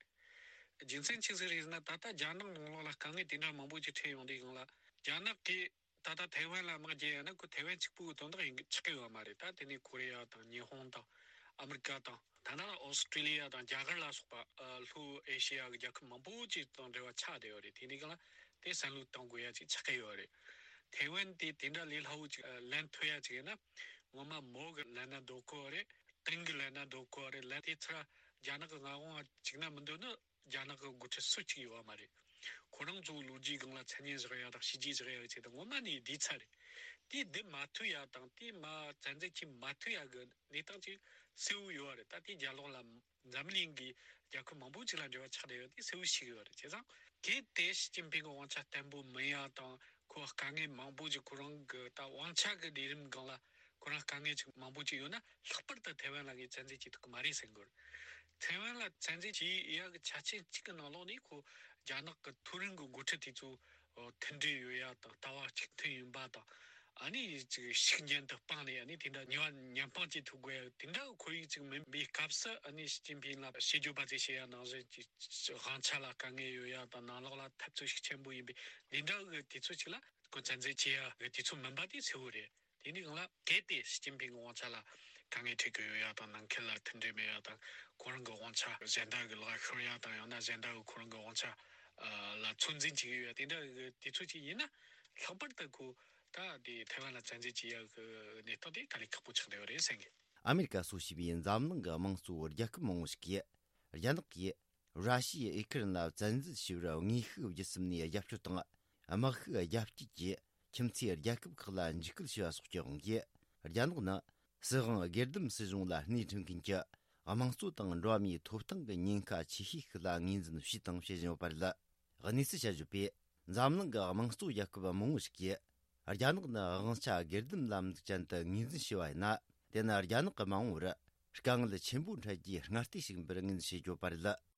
རྒྱུ་མཚན་ཅི་ཟིག་རེད་ཟེར་ན། ད་ལྟ་རྒྱ་ནག་ནང་ལོགས་ལ་དཀའ་ངལ་དེ་འདྲ་མང་པོ་ཅིག་འཕྲད་ཡོང་དུས་སྒང་ལ། རྒྱ་ནག་གིས་ད་ལྟ་ཐའེ་ཝན་ལ་དམག་རྒྱག་ཡ་ན་ཁོ་ཐའེ་ཝན་གཅིག་པུའི་དོན་དག་ཡིན་ཆགས་ཀྱི་ཡོད་མ་རེད། ད་དེ་ནས་ཀོ་རི་ཡ་དང་ཉི་ཧོང་དང་ཨ་མི་རི་ཀ་དང་། ད་ནང་ཨོ་སི་ཀྲི་ལི་ཡ་དང་རྒྱ་གར་ལ་སོགས་པ། ཨ། ལྷོ་ཨེ་ཤེ་ཡ་གི་རྒྱལ་ཁབ་མང་པོ་ཅིག་དང་འབྲེལ་བ་ཆགས་བསྡད་ཡོད་རེད། དེ་འདི་ག་ལ་དེ་བསམ་བློ་གཏོང་དགོས་ཡ་ཅིག་ཆགས་ཀྱི་ཡོད་རེད། ཐའེ་ཝན་དེ་དེ་འདྲ་ལས་སླ་བོ་ཅིག་ཨ། ལེན་ཐུབ་ཡ་ཅིག་ཡིན་ན། ངོ་མ་མོ་གི་ལེན་ན་འདོད་གོ་རེད། ཏིང་གི་ལེན་ན་འདོད་གོ་རེད། ལེན་དེ་ཚར་རྒྱ་ནག་གི་མངའ་དབང་བཅུག་ན་མི་འདོད་ནི། རྒྱ་ནག་གི་འགོ་ཁྲིད་སུ་གཅིག་ཡོད་མ་རེད། ཁོ་རང་ཚོའི་ལོ་རྒྱུས་སྒང་ལ་མཚན་སྙན་བཞག་ཡ་དང་བྱས་རྗེས་བཞག་ཡ་གི་ཆེད་དུ་ངོ་མ་ནས་བསྡད་ཚར་རེད། དེ་བསྡད་མ་ཐུབ་ཡ་དང་དེ་མར་བཙན་འཛུལ་བྱེད་མ་ཐུབ་ཡ་གི་གནས་སྟངས་ཅིག་གསལ་བོ་ཡོད་རེད། ད་དེ་རྒྱབ་ལོགས་ལ་འཛམ་གླིང་གི་རྒྱལ་ཁབ་མང་པོ་ཅིག་ལ་འབྲེལ་བ་ཆགས་བསྡད་ཡོད། དེ་གསལ་བོ་ཤེས་ཀྱི་ཡོད་རེད། བྱས་ཙང་གལ་ཏེ་ཞི་ཅིན་ཕིང་གི་དབང་ཆ་བརྟན་པོ་མིན་ཡ་དང་། ཁོ་དཀའ་ངལ་མང་པོ་ཅིག་ཁོ་རང་གི་ད་དབང་ཆ་གི་ལས་རིམ་སྒང་ལ་ཁོ་རང་དཀའ་ངལ་ཅིག་མང་པོ་ཅིག་ཡོད་ན། ལྷག་པར་དུ་ཐའེ་ཝན་ལ་ངས་བཙན་འཛུལ་བྱེད་ཐུབ་ཀྱི་མ་རེད་ཟེར་གྱི་ཡོད་རེད། ཐའེ་ཝན་ལ་བཙན་འཛུལ་བྱེད་ཡག་གི་ཆ་རྐྱེན་གཅིག་གི་ནང་ལོགས་ནས་ཁོ་རྒྱ་ནག་གི་མཐོ་རིམ་གྱི་འགོ་ཁྲིད་དེ་ཚོ་མཐུན་སྒྲིལ་ཡོད་ཡ་དང་། ལྟ་བ་གཅིག་མཐུན་ཡིན་པ་དང་། ཨ་ནི་ཅིག་ཤུགས་རྐྱེན་དུ་སྤངས་ནས་ཨ་ནི་དེ་འདྲ་ཉེས་པ་ཉེས་དཔང་བྱེད་ཐུབ་དགོས་ཡ་དེ་འདྲ་གི་ཁོར་ཡུག་ཅིག་མིན་པའི་སྐབས་སུ། ཨ་ནི་ཞི་ཅིན་ཕིང་ལ་བཤད་རྒྱུ་བ་ཚོས་བཤད་ཡ་ནང་བཞིན་གྱི་དབང་ཆ་ལ་དཀའ་ངལ་ཡོད་ཡ་དང་། ནང་ལོགས་ལ་འཐབ་རྩོད་ཤུགས་ཆེན་པོ་ཡིན་པའི་འདི་འདྲ་གི་དུས་ཚོད་ཅིག་ལ་ཁོ་བཙན་འཛུལ་བྱེད་ཡ་གི་དུས་ཚོད་མིན་པ་དེ་གསལ་བོ་རེད། དེ་འདི་སྒང་ལ་གལ་ཏེ་ཞི་ཅིན་ཕིང་གི་དབང་ཆ་ལ་དཀའ་ངལ་འཕྲད་ཀྱི་ཡོད་ཡ་དང་། ནང་ཁུལ་ལ་མཐུན་སྒྲིལ་མེད་ཡ་དང་། ཁོ་རང་གི་དབང་ཆ་གཞན་དག་གི་ལག་ཤོར་ཡ་དང་། ཡང་ན་གཞན་དག་གི་ཁོ་རང་གི་དབང་ཆ་ལ་ཚོད་འཛིན་བྱེད་ཀྱི་ཡོད་ཡ་དེ་འདྲ་གི་དུས་ཚོད་ཅིག་ཡིན་ན། ལྷག་པར་དུ་ཁོ་ད་དེ་ཐའེ་ཝན་ལ་བཙན་འཛུལ་བྱེད་ཡ་གི་གནས་སྟངས་དེ་དཀའ་ལས་ཁག་པོ་ཆགས་བསྡད་ཡོད་རེད་བསམ་གི། ཨ་མེ་རི་ཀ་སོགས་བྱས་པའི་འཛམ་གླིང་གི་དམངས་གཙོ་རྒྱལ་ཁབ་མང་བོ་ཞིག་གིས་རྒྱ་ནག་གིས་ར་ཤི་ཡའི་ཨུ་ཁུ་རན་ལ་བཙན་འཛུལ་བྱས་པར་དངོས་ཤུགས་བརྒྱུད་གསུམ་ནས་རྒྱབ་སྐྱོར་དང་། དམག་ཤུགས་རྒྱ་སྐྱེད་ཀྱིས་ ཁྱིམ་མཚེས་རྒྱལ་ཁབ་ཁག་ལ་འཇིགས་སྐུལ་བྱས་པ་སོགས་ཀྱི་དབང་གིས། རྒྱ་ནག་ནི་སྲིད་དབང་སྒེར་སྡེམ་སྲིད་གཞུང་ལ་སྣེ་ཁྲིད་མཁན་གྱི་དམངས་གཙོ་དང་འགྲོ་བ་མིའི་ཐོབ་ཐང་གི་ཉེན་ཁ་ཆེ་ཤོས་ཤིག་ལ་ངོས་འཛིན་བྱས་དང་བྱེད་བཞིན་ཡོད་པ་རེད། གནས་ཚུལ་དཔྱད་བརྗོད་པས། འཛམ་གླིང་གི་དམངས་གཙོ་རྒྱལ་ཁབ་མང་བོ་ཞིག་གིས། རྒྱ་ནག་ནི་དབང་ཆ་སྒེར་སྡེམ་ལམ་ལུགས་ཅན་དུ་ངོས་འཛིན་བྱས་པ་ཡིན་ན། དེ་ནི་རྒྱ་ནག་གི་མ་འོངས་པར་དཀའ་ངལ་ཆེན་པོ་འཕྲད་རྒྱུའི་སྔ་ལྟས་ཤིག་ཡིན་པར་ངོས་འཛིན་བྱེད་ཀྱི་ཡོད་པ་རེད།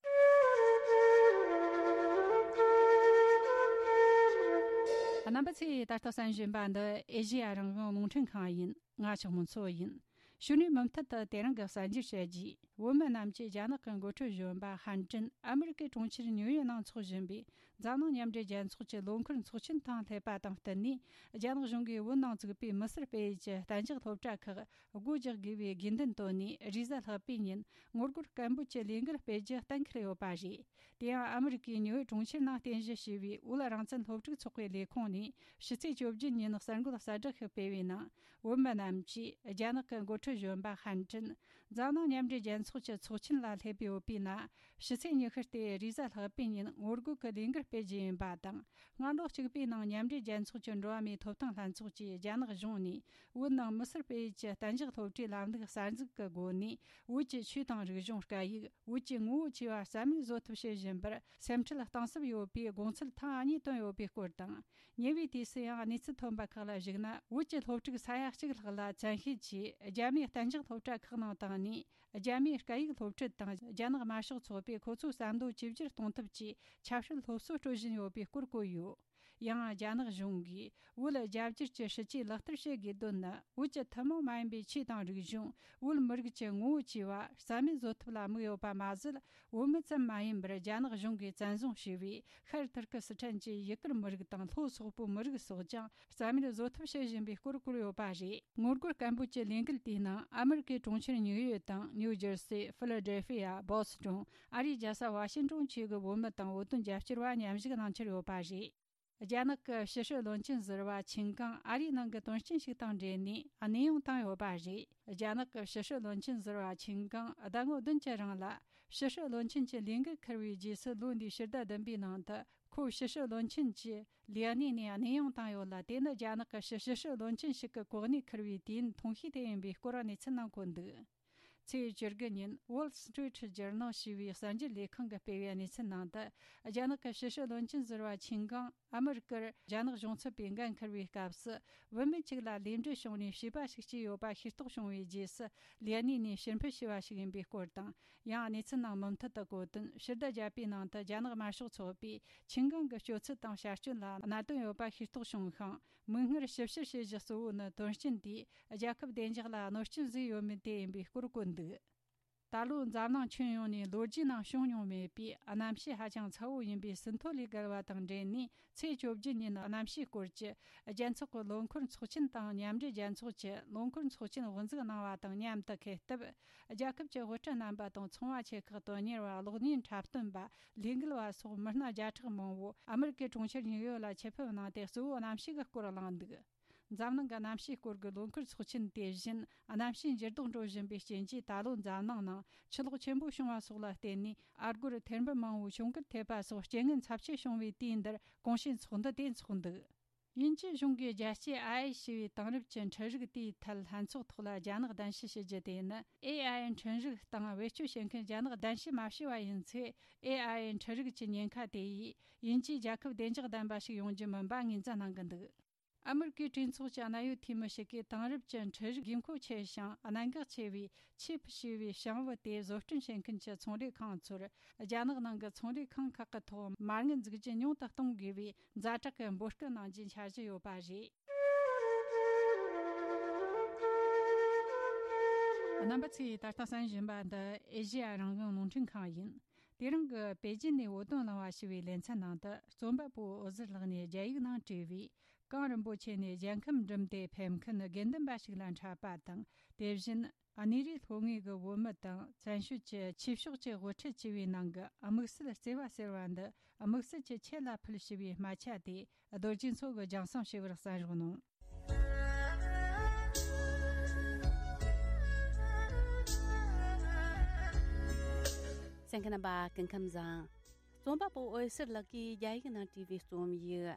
རྣམ་པ་ཚོས་ད་ལྟ་གསན་བཞིན་པ་འདི་ཨེ་ཤེ་ཡ་རང་དབང་རླུང་འཕྲིན་ཁང་ཡིན། ང་ཆགས་མོ་མཚོ་ཡིན། གཞུག་ནས་མུ་མཐུད་དུ་དེ་རིང་གི་གསར་འགྱུར་བཤད་རྒྱུས། བོད་མི་རྣམས་ཀྱིས་རྒྱ་ནག་གི་འགོ་ཁྲིད་གཞོན་པ་ཧན་ཀྲིན་ཨ་མི་རི་ཀའི་གྲོང་ཁྱེར་ཉིའུ་ཡོག་ནང་འཚོགས་བཞིན་པའི་འཛམ་གླིང་མཉམ་འབྲེལ་རྒྱལ་ཚོགས་ཀྱི་ལོ་འཁོར་ཚོགས་ཆེན་དང་སླེབས་པ་དང་བསྟུན་ནས། རྒྱ་ནག་གཞུང་གིས་བོད་ནང་བཙུགས་པའི་མི་སེར་སྤེལ་ཡུལ་གྱི་གཏན་འཇགས་སློབ་གྲྭ་ཁག་སྒོ་རྒྱག་དགོས་པའི་དགོས་འདུན་བཏོན་ནས། རེས་གཟའ་ལྷག་པའི་ཉིན་ངོ་རྒོལ་སྐད་འབོད་ཀྱི་ལས་འགུལ་སྤེལ་རྒྱུ་གཏན་འཁེལ་ཡོད་པ་རེད། དེ་ཡང་ཨ་མི་རི་ཀའི་ཉིའུ་ཡོག་གྲོང་ཁྱེར་ནང་རྟེན་གཞི་བྱས་པའི་བོད་རང་བཙན་སློབ་ཕྲུག་ཚོགས་པའི་ལས་ཁུངས་ནས། ཕྱི་ཚེས་བཅོ་བརྒྱད་ཉིན་གསར་འགོད་གསལ་བསྒྲགས་ཤིག་སྤེལ་བའི་ནང་། བོད་མི་རྣམས་ཀྱིས་རྒྱ་ནག་གི་འགོ་ཁྲིད་གཞོན་པ་ཧན་ཀྲིན་འཛམ་གླིང་མཉམ་འབྲེལ་རྒྱལ་ཚོགས་ཀྱི་ཚོགས་ཆེན་ལ་སླེབས་ཡོད་པའི་ནང་། ཕྱི་ཚེས་ཉི་ཤུ་སྟེ་རེས་གཟའ་ལྷག་པའི་ཉིན་ངོ་རྒོལ་གྱི་ལས་འགུལ་སྤེལ་རྒྱུ་ཡིན་པ་དང་། སྔ་ལོ་གཅིག་པའི་ནང་མཉམ་འབྲེལ་རྒྱལ་ཚོགས་ཀྱི་འགྲོ་བ་མིའི་ཐོབ་ཐང་ལྷན་ཚོགས་ཀྱིས་རྒྱ་ནག་གཞུང་ནས་བོད་ནང་མི་སེར་སྤེལ་ཡུལ་གྱི་གཏན་འཇགས་སློབ་གྲྭའི་ལམ་ལུགས་གསར་འཛུགས་ཀྱི་སྒོ་ནས། བོད་ཀྱི་ཆོས་དང་རིག་གཞུང་། སྐད་ཡིག་བོད་ཀྱི་ངོ་བོ་བཅས་པ་རྩ་མེད་བཟོ་ཐབས་བྱེད་བཞིན་པར་སེམས་ཁྲལ་གཏིང་ཟབ་ཡོད་པའི་དགོངས་ཚུལ་ཐེངས་གཉིས་བཏོན་ཡོད་པའི་སྐོར་དང་། ཉེ་བའི་དུས་སུ་ཡང་གནས་ཚུལ་ཐོན་པ་ཁག་ལ་གཞིགས་ན། བོད་ཀྱི་སློབ་ཕྲུག་ས་ཡ་གཅིག་ལྷག་ལ་བཙན་ཤེད་ཀྱིས་རྒྱ་མིའི་གཏན་འཇགས་སློབ་གྲྭ་ཁག་ནང་བཏང་ནས། རྒྱ་མིའི་སྐད་ཡིག་སློབ་ཁྲིད་དང་། རྒྱ་ནག་དམར་ཤོག་ཚོགས་པས་ཁོ་ཚོའི་བསམ་བློ་ཇེ་བསྒྱུར་གཏོང་ཐབས་ཀྱི་ཆབ་སྲིད་སློབ་གསོ་སྤྲོད་བཞིན་ཡོད་པའི་སྐོར་བཀོད་ཡོད། ཡང་རྒྱ་ནག་གཞུང་གིས་བོད་རྒྱ་སྒྱུར་གྱི་སྲིད་ཇུས་ལག་བསྟར་བྱེད་དགོས་དོན་ནི། བོད་ཀྱི་ཐུན་མོང་མ་ཡིན་པའི་ཆོས་དང་རིག་གཞུང་། བོད་མི་རིགས་ཀྱི་ངོ་བོ་བཅས་པ་རྩ་མེད་བཟོ་ཐབས་ལ་དམིགས་ཡོད་པ་མ་ཟད། བོད་མི་ཙམ་མ་ཡིན་པར། རྒྱ་ནག་གཞུང་གིས་བཙན་བཟུང་བྱས་པའི་ཤར་ཐུར་ཀི་སི་ཐན་གྱི་ཡུ་གུར་མི་རིགས་དང་། ལྷོ་སོག་པོའི་མི་རིགས་སོགས་ཀྱང་རྩ་མེད་བཟོ་ཐབས་བྱེད་བཞིན་པའི་སྐོར་བཀོད་ཡོད་པ་རེད། ངོ་རྒོལ་སྐད་འབོད་ཀྱི་ལས་འགུལ་དེའི་ནང་ཨ་མི་རི་ཀའི་གྲོང་ཁྱེར་ཉིའུ་ཡོག་དང་། ནིའུ་ཇར་སི། ཕི་ལ་ཌེལ་ཕི་ཡ། བོ་སི་ཊོན། ཨ་རིའི་རྒྱལ་ས་ཝ་ཤིང་ཏོན་བཅས་ཀྱི་བོད་མི་དང་བོད་དོན་རྒྱབ་སྐྱོར་བ་མཉམ་ཞུགས་གནང་འཆར་ཡོད་པ་རེད། རྒྱ་ནག་གི་ཕྱི་སྲིད་བློན་ཆེན་ཟུར་པ་ཆིན་ཀང་ཨ་རིའི་ནང་གི་དོན་རྐྱེན་ཞིག་དང་འབྲེལ་ནས་གནས་དབྱུང་བཏང་ཡོད་པ་རེད། རྒྱ་ནག་གི་ཕྱི་སྲིད་བློན་ཆེན་ཟུར་པ་ཆིན་ཀང་ཟླ་ངོ་བདུན་གྱི་རིང་ལ་ཕྱི་སྲིད་བློན་ཆེན་གྱི་ལས་འགུལ་འཁུར་བའི་རྗེས་སུ། ལོ་འདིའི་ཕྱི་ཟླ་བདུན་པའི་ནང་དུ་ཁོ་ཕྱི་སྲིད་བློན་ཆེན་གྱི་ལས་གནས་ནས་གནས་དབྱུང་བཏང་ཡོད་ལ། དེ་ནི་རྒྱ་ནག་གི་ཕྱི་སྲིད་བློན་ཆེན་ཞིག་གི་གོ་གནས་འཁུར་བའི་དུས་ཡུན་ཐུང་ཤོས་དེ་ཡིན་པའི་སྐོར་གནས་ཚུལ་ནང་འཁོད་འདུག། ཚེས་བཅུ་དགུ་ཉིན་Wall Street Journal ཞེས་པའི་གསར་འགྱུར་ལས་ཁང་གིས་སྤེལ་བའི་གནས་ཚུལ་ནང་དུ། རྒྱ་ནག་གི་ཕྱི་སྲིད་བློན་ཆེན་ཟུར་པ་ཆིན་ཀང་ཨ་མི་རི་ཀར་རྒྱ་ནག་གཞུང་ཚབ་པའི་འགན་འཁུར་བའི་སྐབས་སུ། བུད་མེད་ཅིག་ལ་ལུས་འབྲེལ་བྱུང་ནས་བྱིས་པ་ཞིག་སྐྱེས་ཡོད་པ་ཤེས་རྟོགས་བྱུང་བའི་རྗེས་སུ། ལས་གནས་ནས་ཕྱིར་འབུད་བྱས་པ་ཞིག་ཡིན་པའི་སྐོར་དང་། ཡང་གནས་ཚུལ་ནང་མུ་མཐུད་དུ་བཀོད་དོན། ཕྱི་ཟླ་བརྒྱད་པའི་ནང་དུ་རྒྱ་ནག་དམར་ཤོག་ཚོགས་པས་ཆིན་ཀང་གི་སྤྱོད་ཚུལ་དང་བྱ་སྤྱོད་ལ་གནད་དོན་ཡོད་པ་ཤེས་རྟོགས་བྱུང་ཞིང་། མིག་སྔར་ཞིབ་བཤེར་བྱེད་གཞི་གཙོ་བོ་ནི། དོན་རྐྱེན་དེས་རྒྱལ་ཁབ་བདེ་འཇགས་ལ་གནོད་སྐྱོན་བཟོས་ཡོད་མེད་དེ་ཡིན་པའི་སྐོར་བཀོད་འདུག། ད་ལོ་འཛམ་གླིང་ཁྱོན་ཡོངས་ནས་ལོ་རྒྱུས་ནང་བྱུང་མྱོང་མེད་པའི་གནམ་གཤིས་ཧ་ཅང་ཚ་བོ་ཡིན་པའི་ཟིན་ཐོ་ལས་བརྒལ་བ་དང་འབྲེལ་ནས། ཚེས་བཅོ་བརྒྱད་ཉིན་གནམ་གཤིས་སྐོར་གྱི་རྒྱལ་ཚོགས་ཀྱི་ལོ་འཁོར་ཚོགས་ཆེན་དང་། མཉམ་འབྲེལ་རྒྱལ་ཚོགས་ཀྱི་ལོ་འཁོར་ཚོགས་ཆེན་དབུ་འཛུགས་གནང་བ་དང་མཉམ་དུ། འཁེལ་སྟབས། རྒྱལ་ཁབ་ཀྱི་དབུ་ཁྲིད་རྣམ་པ་དང་། ཚོང་བ་ཆེ་ཁག་དོན་གཉེར་བ། གློག་བརྙན་འཁྲབ་སྟོན་པ། ལས་འགུལ་བ་སོགས་མི་སྣ་བརྒྱ་ཕྲག་མང་བོ་ཨ་མི་རི་ཀའི་གྲོང་ཁྱེར་ཉིའུ་ཡོག་ལ་ཆེད་ཕེབས་གནང་སྟེ། གཙོ་བོ་གནམ་གཤིས་ཀྱི་སྐོར་གླེང་འདུག། འཛམ་གླིང་གི་གནམ་གཤིས་སྐོར་གྱི་ལོ་འཁོར་ཚོགས་ཆེན་དེ་བཞིན། གནམ་གཤིས་འགྱུར་ལྡོག་འགྲོ་བཞིན་པའི་རྐྱེན་གྱིས། ད་ལོ་འཛམ་གླིང་ནང་ཆུ་ལོག་ཆེན་པོ་བྱུང་བ་སོགས་ལ་བརྟེན་ནས། ཨ་སྒོར་ཐེར་འབུམ་མང་བོའི་གྱོང་གུད་ཐེབས་པ་སོགས། རྐྱེན་ངན་ཚབས་ཆེ་བྱུང་བའི་དུས་འདིར་གོང་བྱུང་ཚོགས་འདུ་དེ་འཚོགས་འདུག། དབྱིན་ཇི་གཞུང་གིས་རྒྱལ་སྤྱིའི་ཨའེ་ཞེས་པའི་དེང་རབས་ཀྱི་འཕྲུལ་རིག་དེའི་ཐད་ལྷན་ཚོགས་ཐོག་ལ་རྒྱ་ནག་གདན་ཞུ་ཞུ་རྒྱུ་དེ་ནི། ཨེ་ཨའི་འཕྲུལ་རིག་སྟེང་བེད་སྤྱོད་བྱེད་མཁན་རྒྱ་ནག་གདན་ཞུ་མ་བྱས་པ་ཡིན་ཚེ། ཨེ་ཨའི་འཕྲུལ་རིག་གི་ཉེན་ཁ་དེ་ཡིས་དབྱིན་ཇིའི་རྒྱལ་ཁབ་བདེ་འཇགས་ལྡན་པ་ཞིག་ཡོང་རྒྱུ་མིན་པ་ངོས་འཛིན་གནང་གི་འདུག། ཨ་མི་རི་ཀའི་གྲོས་ཚོགས་ཀྱི་གནད་ཡོད་འཐུས་མི་ཞིག་གིས། དེང་རབས་ཀྱི་འཕྲུལ་རིག་དགོས་མཁོ་ཆེ་ཞིང་གནད་འགག་ཆེ་བའི་ཆིབ་ཞེས་པའི་ཞིང་བུ་དེ་བཟོ་སྐྲུན་བྱེད་མཁན་གྱི་ཚོང་ལས་ཁང་ཚོར། རྒྱ་ནག་ནང་གི་ཚོང་ལས་ཁང་ཁག་གི་ཐོག་མ་དངུལ་འཛུགས་རྒྱུ་ཉུང་དུ་གཏོང་དགོས་པའི་ཛ་དྲག་གི་འབོད་སྐུལ་གནང་རྒྱུའི་འཆར་གཞི་ཡོད་པ་རེད། རྣམ་པ་ཚོས་ད་ལྟ་གསན་བཞིན་པ་འདི་ཨེ་ཤེ་ཡ་རང་དབང་རླུང་འཕྲིན་ཁང་ཡིན། དེ་རིང་གི་པེ་ཅིན་ནས་བོད་དོན་གླེང་བ་ཞེས་པའི་ལེ་ཚན་ནང་དུ། རྩོམ་པ་པོ་འོད་ཟེར་ལགས་ནས་རྒྱ་ཡིག་ནང་བྲིས་པའི། གངས་རིན་པོ་ཆེ་ནས་རྒྱལ་ཁམས་འགྲིམས་ཏེ་ཕེབས་མཁན་དགེ་འདུན་པ་ཞིག་ལ་འཕྲད་པ་དང་། དེ་བཞིན་གནས་རིའི་ལྷོ་ངོས་ཀྱི་བོད་མི་དང་བཙན་བྱོལ་གྱི་ཆོས་ཕྱོགས་ཀྱི་དབུ་ཁྲིད་བཅས་པའི་ནང་གི་དམིགས་བསལ་བརྩེ་བ་ཟེར་བ་འདི། དམིགས་བསལ་གྱི་ཁྱེད་ལ་ཕུལ་ཞེས་པའི་སྨད་ཆ་དེ། རྡོ་རྗེ་མཚོ་གིས་སྦྱངས་བསམ་ཞུ་བར་གསན་རོགས་གནང་། གསན་མཁན་རྣམ་པ་སྐུ་ཁམས་བཟང་། རྩོམ་པ་པོ་འོད་ཟེར་ལགས་ཀྱིས་རྒྱ་ཡིག་ནང་བྲིས་པའི་རྩོམ་ཡིག་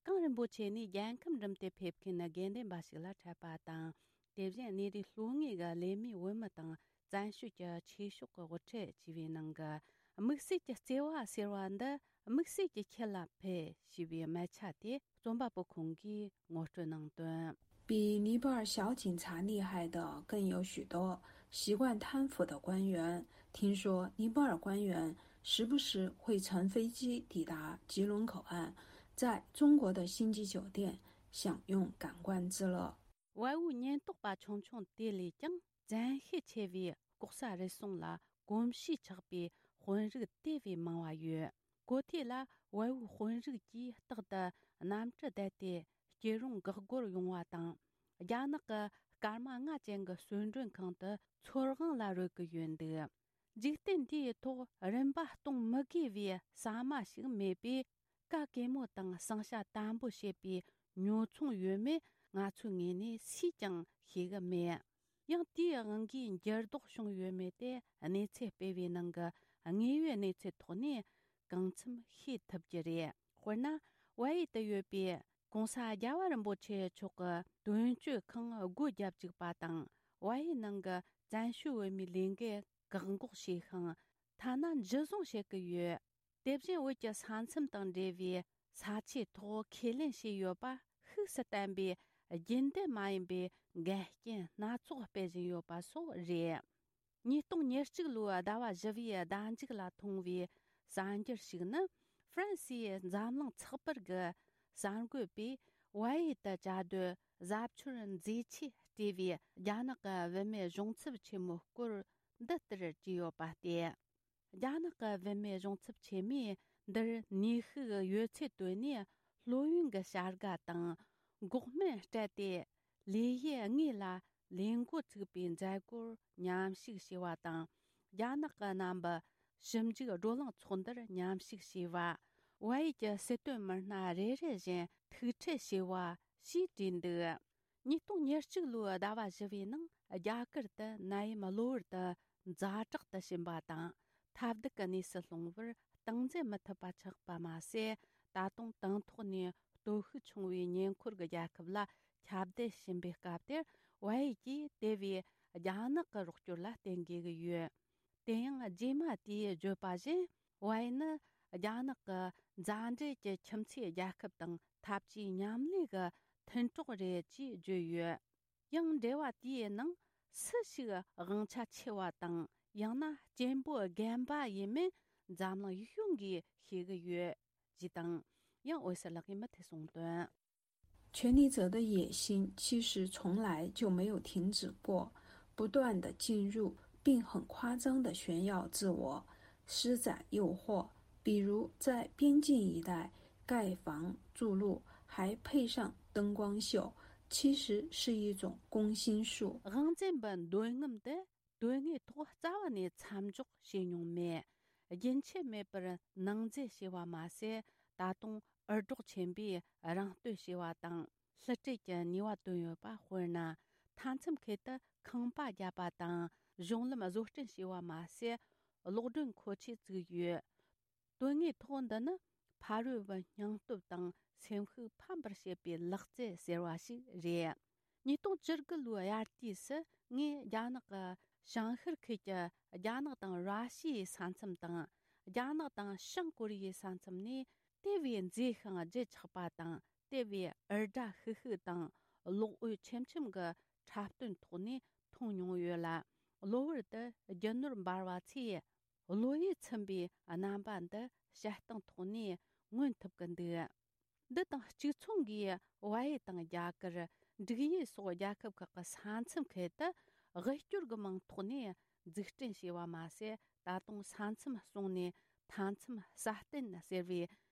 གླིང་རིན་པོ་ཆེ་ནི་རྒྱལ་ཁམས་འགྲིམ་སྟེ་ཕེབས་མཁན་དགེ་འདུན་པ་ཞིག་ལ་འཕྲད་པ་དང་། དེ་བཞིན་གནས་རིགས་ལྷོ་ངོས་ཀྱི་ལས་མེད་བོད་མི་དང་བཙན་བྱོལ་གྱི་ཆོས་ཕྱོགས་ཀྱི་དབུ་ཁྲིད་བཅས་པའི་ནང་གི། དམིགས་བསལ་གྱི་བརྩེ་བ་ཟེར་བ་འདི་དམིགས་བསལ་གྱི་ཁྱེད་ལ་ཕུལ་ཞེས་པའི་མལ་ཆ་དེ་རྩོམ་པ་པོ་ཁོང་གིས་ངོ་སྤྲོད་གནང་དོན། 比尼泊尔小警察厉害的更有许多。习惯贪腐的官员，听说尼泊尔官员时不时会乘飞机抵达吉隆口岸，在中国的星级酒店享用感官之乐。 བལ་པོའི་ཉེན་རྟོག་པ་ཆུང་ཆུང་དེ་ལས་ཀྱང་བཙན་ཤེད་ཆེ་བའི་ལྐོག་ཟ་རུལ་སུངས་ལ་གོམས་གཤིས་ཆགས་པའི་དཔོན་རིགས་དེ་བས་མང་བ་ཡོད། གོ་ཐོས་ལ་བལ་པོའི་དཔོན་རིགས་ཀྱིས་རྟག་ཏུ་གནམ་གྲུ་བསྡད་དེ་སྐྱིད་རུང་འགག་སྒོར་ཡོང་བ་དང་། རྒྱ་ནག་གི་སྐར་མ་ལྔ་ཅན་གྱི་གསོལ་མགྲོན་ཁང་དུ་ཚོར་དབང་ལ་རོལ་གྱི་ཡོད་འདུག་འཇིག་རྟེན་འདིའི་ཐོག་རིན་པ་གཏོང་མི་དགོས་པའི་ཟ་མ་ཞིག་མེད་པས། ག་གེ་མོ་དང་བསང་ཤ་དམ་པོ་བྱེད་པའི་ཉོ་ཚོང་ཡོད་མེད་ང་ཚོའི་ངོས་ནས་སུས་ཀྱང་ཤེས་གི་མེད། ཡང་དེའི་དབང་གིས་འགྱུར་ལྡོག་བྱུང་ཡོད་མེད་དེ་གནས་ཚུལ་སྤེལ་བའི་ནང་གི་དངོས་ཡོད་གནས་ཚུལ་ཐོག་ནས་གང་འཚམ་ཤེས་ཐུབ་ཀྱི་རེད། དཔེར་ན། བལ་ཡུལ་དུ་ཡོད་པའི་གོང་ས་རྒྱལ་བ་རིན་པོ་ཆེ་མཆོག་གི་དོན་གཅོད་ཁང་སྒོ་བརྒྱབ་བཅུག་པ་དང་། བལ་ཡུལ་ནང་གི་བཙན་བྱོལ་བོད་མིའི་ལས་འགུལ་བཀག་འགོག་བྱས་ཤིང་། ཐ་ན་འཇུ་བཟུང་བྱེད་ཀྱི་ཡོད། དེ་བཞིན་བོད་ཀྱི་ས་མཚམས་དང་འབྲེལ་བའི་ས་ཆའི་ཐོག་ཁས་ལེན་བྱས་ཡོད་པ་ཤུགས་སུ་བསྟན་པའི་རྒྱུན་ལྡན་མ་ཡིན་པའི་འགལ་རྐྱེན་སྣ་ཚོགས་སྤེལ་བཞིན་ཡོད་པ་སོགས་རེད། ཉིས་སྟོང་ཉེར་གཅིག་ལོའི་ཟླ་བ་བཞི་པའི་ཟླ་མཇུག་ལ་མཐོང་བའི་གསར་འགྱུར་ཞིག་ནི། ཧྥ་རན་སིའི་འཛམ་གླིང་ཚགས་པར་གྱི་གསར་འགོད་པས་བལ་ཡུལ་དུ་བཅའ་སྡོད་གཟབ་མཆོར་མཛེས་ཆས་སྤྲས་པའི་རྒྱ་ནག་གི་བུད་མེད་གཞུང་ཚབ་ཆེན་མོའི་སྐོར་འདི་ལྟར་བྲིས་ཡོད་པ་སྟེ། རྒྱ་ནག་གི་བུད་མེད་གཞུང་ཚབ་ཆེན་མོས་འདིར་ནུས་ཤུགས་ཡོད་ཚད་བཏོན་ནས་སློབ་ཡོན་གྱི་བྱ་དགའ་དང་འགོག་སྨན་སྤྲད་དེ། ལས་གཞི་དངོས་ལ་ལས་འགོ་བཙུགས་པའི་མཛད་སྒོར་མཉམ་ཞུགས་བྱས་པ་དང་། རྒྱ་ནག་གི་རྣམ་པ་ཞིབ་འཇུག་བགྲོ་གླེང་ཚོགས་འདུར་མཉམ་ཞུགས་བྱས་པ། བལ་ཡུལ་གྱི་སྲིད་དོན་མི་སྣ་རེ་རེ་བཞིན་ཐུག་འཕྲད་བྱས་པ་ཞེས་བྲིས་འདུག་ཉིས་སྟོང་ཉེར་གཅིག་ལོའི་ཟླ་བ་བཞི་པའི་ནང་རྒྱ་གར་དུ་ནད་ཡམས་གློ་བུར་དུ་ཛ་དྲག་ཏུ་ཕྱིན་པ་དང་། ཐབས་སྡུག་གི་གནས་སུ་ལྷུང་བར་སྟངས་འཛིན་མི་ཐུབ་པ་ཆགས་པ་མ་ཟད། ད་དུང་དང་ཐོག་ནས་སྟོབས་ཤུགས་ཆུང་བའི་ཉེ་འཁོར་གྱི་རྒྱལ་ཁབ་ལ་ཁྱབ་གདལ་ཕྱིན་པའི་སྐབས་དེར། བལ་ཡུལ་གྱིས་དེ་བས་རྒྱ་ནག་གི་རོགས་སྐྱོར་ལ་བརྟེན་དགོས་ཀྱི་ཡོད། དེ་ཡང་རྗེས་མ་དེས་བརྗོད་པ་བཞིན། བལ་ཡུལ་ནི་རྒྱ་ནག་གི་མཛའ་འབྲེལ་གྱི་ཁྱིམ་མཚེས་རྒྱལ་ཁབ་དང་འཐབ་ཇུས་མཉམ་ལས་ཀྱི་མཐུན་གྲོགས་རེད་ཅེས་བརྗོད་ཡོད། ཡང་འབྲེལ་བ་དེའི་ནང་སུ་ཞིག་དབང་ཆ་ཆེ་བ་དང་། ཡང་ན་སྐྱེན་པོ་རྒན་པ་ཡིན་མིན་འཛམ་གླིང་ཡིད་གཞུང་གིས་ཤེས་ཀྱི་ཡོད། ཅེས་དང་། ཡང་འོད་ཟེར་ལགས་ཀྱིས་མུ་མཐུད་གསུངས་དོན། 权力者的野心其实从来就没有停止过，不断地进入并很夸张地炫耀自我，施展诱惑。比如在边境一带盖房筑路，还配上灯光秀，其实是一种攻心术。 དབང་འཛིན་པའི་འདོད་རྔམ་དེ། དོན་དངོས་ཐོག་རྩ་བ་ནས་མཚམས་འཇོག་བྱས་མྱོང་མེད། རྒྱུན་ཆད་མེད་པར་ནང་འཛུལ་བྱས་པ་མ་ཟད། ད་དུང་འུར་སྒྲོག་ཆེན་པོས་རང་བསྟོད་བྱས་པ་དང་། བསླུ་བྲིད་ཀྱི་ནུས་པ་བཏོན་ཡོད་པ། དཔེར་ན། མཐའ་མཚམས་ཁུལ་དུ་ཁང་པ་བརྒྱབ་པ་དང་། གཞུང་ལམ་བཟོ་སྐྲུན་བྱས་པ་མ་ཟད། གློག་སྒྲོན་མཁོ་ཆས་བཙུགས་ཡོད། དོན་དངོས་ཐོག་འདི་ནི་ཕ་རོལ་པོའི་སྙིང་སྟོབས་དང་སེམས་ཤུགས་ཕམ་པར་བྱེད་པའི་ལག་རྩལ་ཟེར་བ་ཞིག་རེད། ཉིས་སྟོང་བཅུ་དགུ་ལོའི་དབྱར་དུས་སུ། ངས་རྒྱ་ནག་གི་བྱང་ཤར་ཁུལ་གྱི་རྒྱ་ནག་དང་ར་ཤི་ཡའི་ས་མཚམས་དང་། རྒྱ་ནག་དང་བྱང་ཀོ་རི་ཡའི་ས་མཚམས་ནས་དེ་བས་མཛེས་ཤིང་བརྗིད་ཆགས་པ་དང་། དེ་བས་འུར་སྒྲ་ཤིག་ཤིག་དང་གློག་འོད་ཆེམ་ཆེམ་གྱི་འཁྲབ་སྟོན་ཐོག་ནས་མཐོང་མྱོང་ཡོད་ལ། གློ་བུར་དུ་རྒྱུ་ནོར་འབར་བ་ཚོས། གློ་ཡུས་ཚིམ་པའི་རྣམ་པ་འདི་བཤད་སྟངས་ཐོག་ནས་མངོན་ཐུབ་ཀྱི་འདུག་འདི་དང་གཅིག་མཚུངས་ཀྱིས། བལ་ཡུལ་དང་རྒྱ་གར། འབྲུག་ཡུལ་སོགས་རྒྱལ་ཁབ་ཁག་གི་ས་མཚམས་ཁུལ་དུ། དབུལ་སྐྱོར་གྱི་མིང་ཐོག་ནས་འཛུགས་སྐྲུན་བྱས་པ་མ་ཟད། ད་དུང་ས་མཚམས་སྲུང་ནས་མཐའ་མཚམས་སྲ་བརྟན་ཟེར་བའི་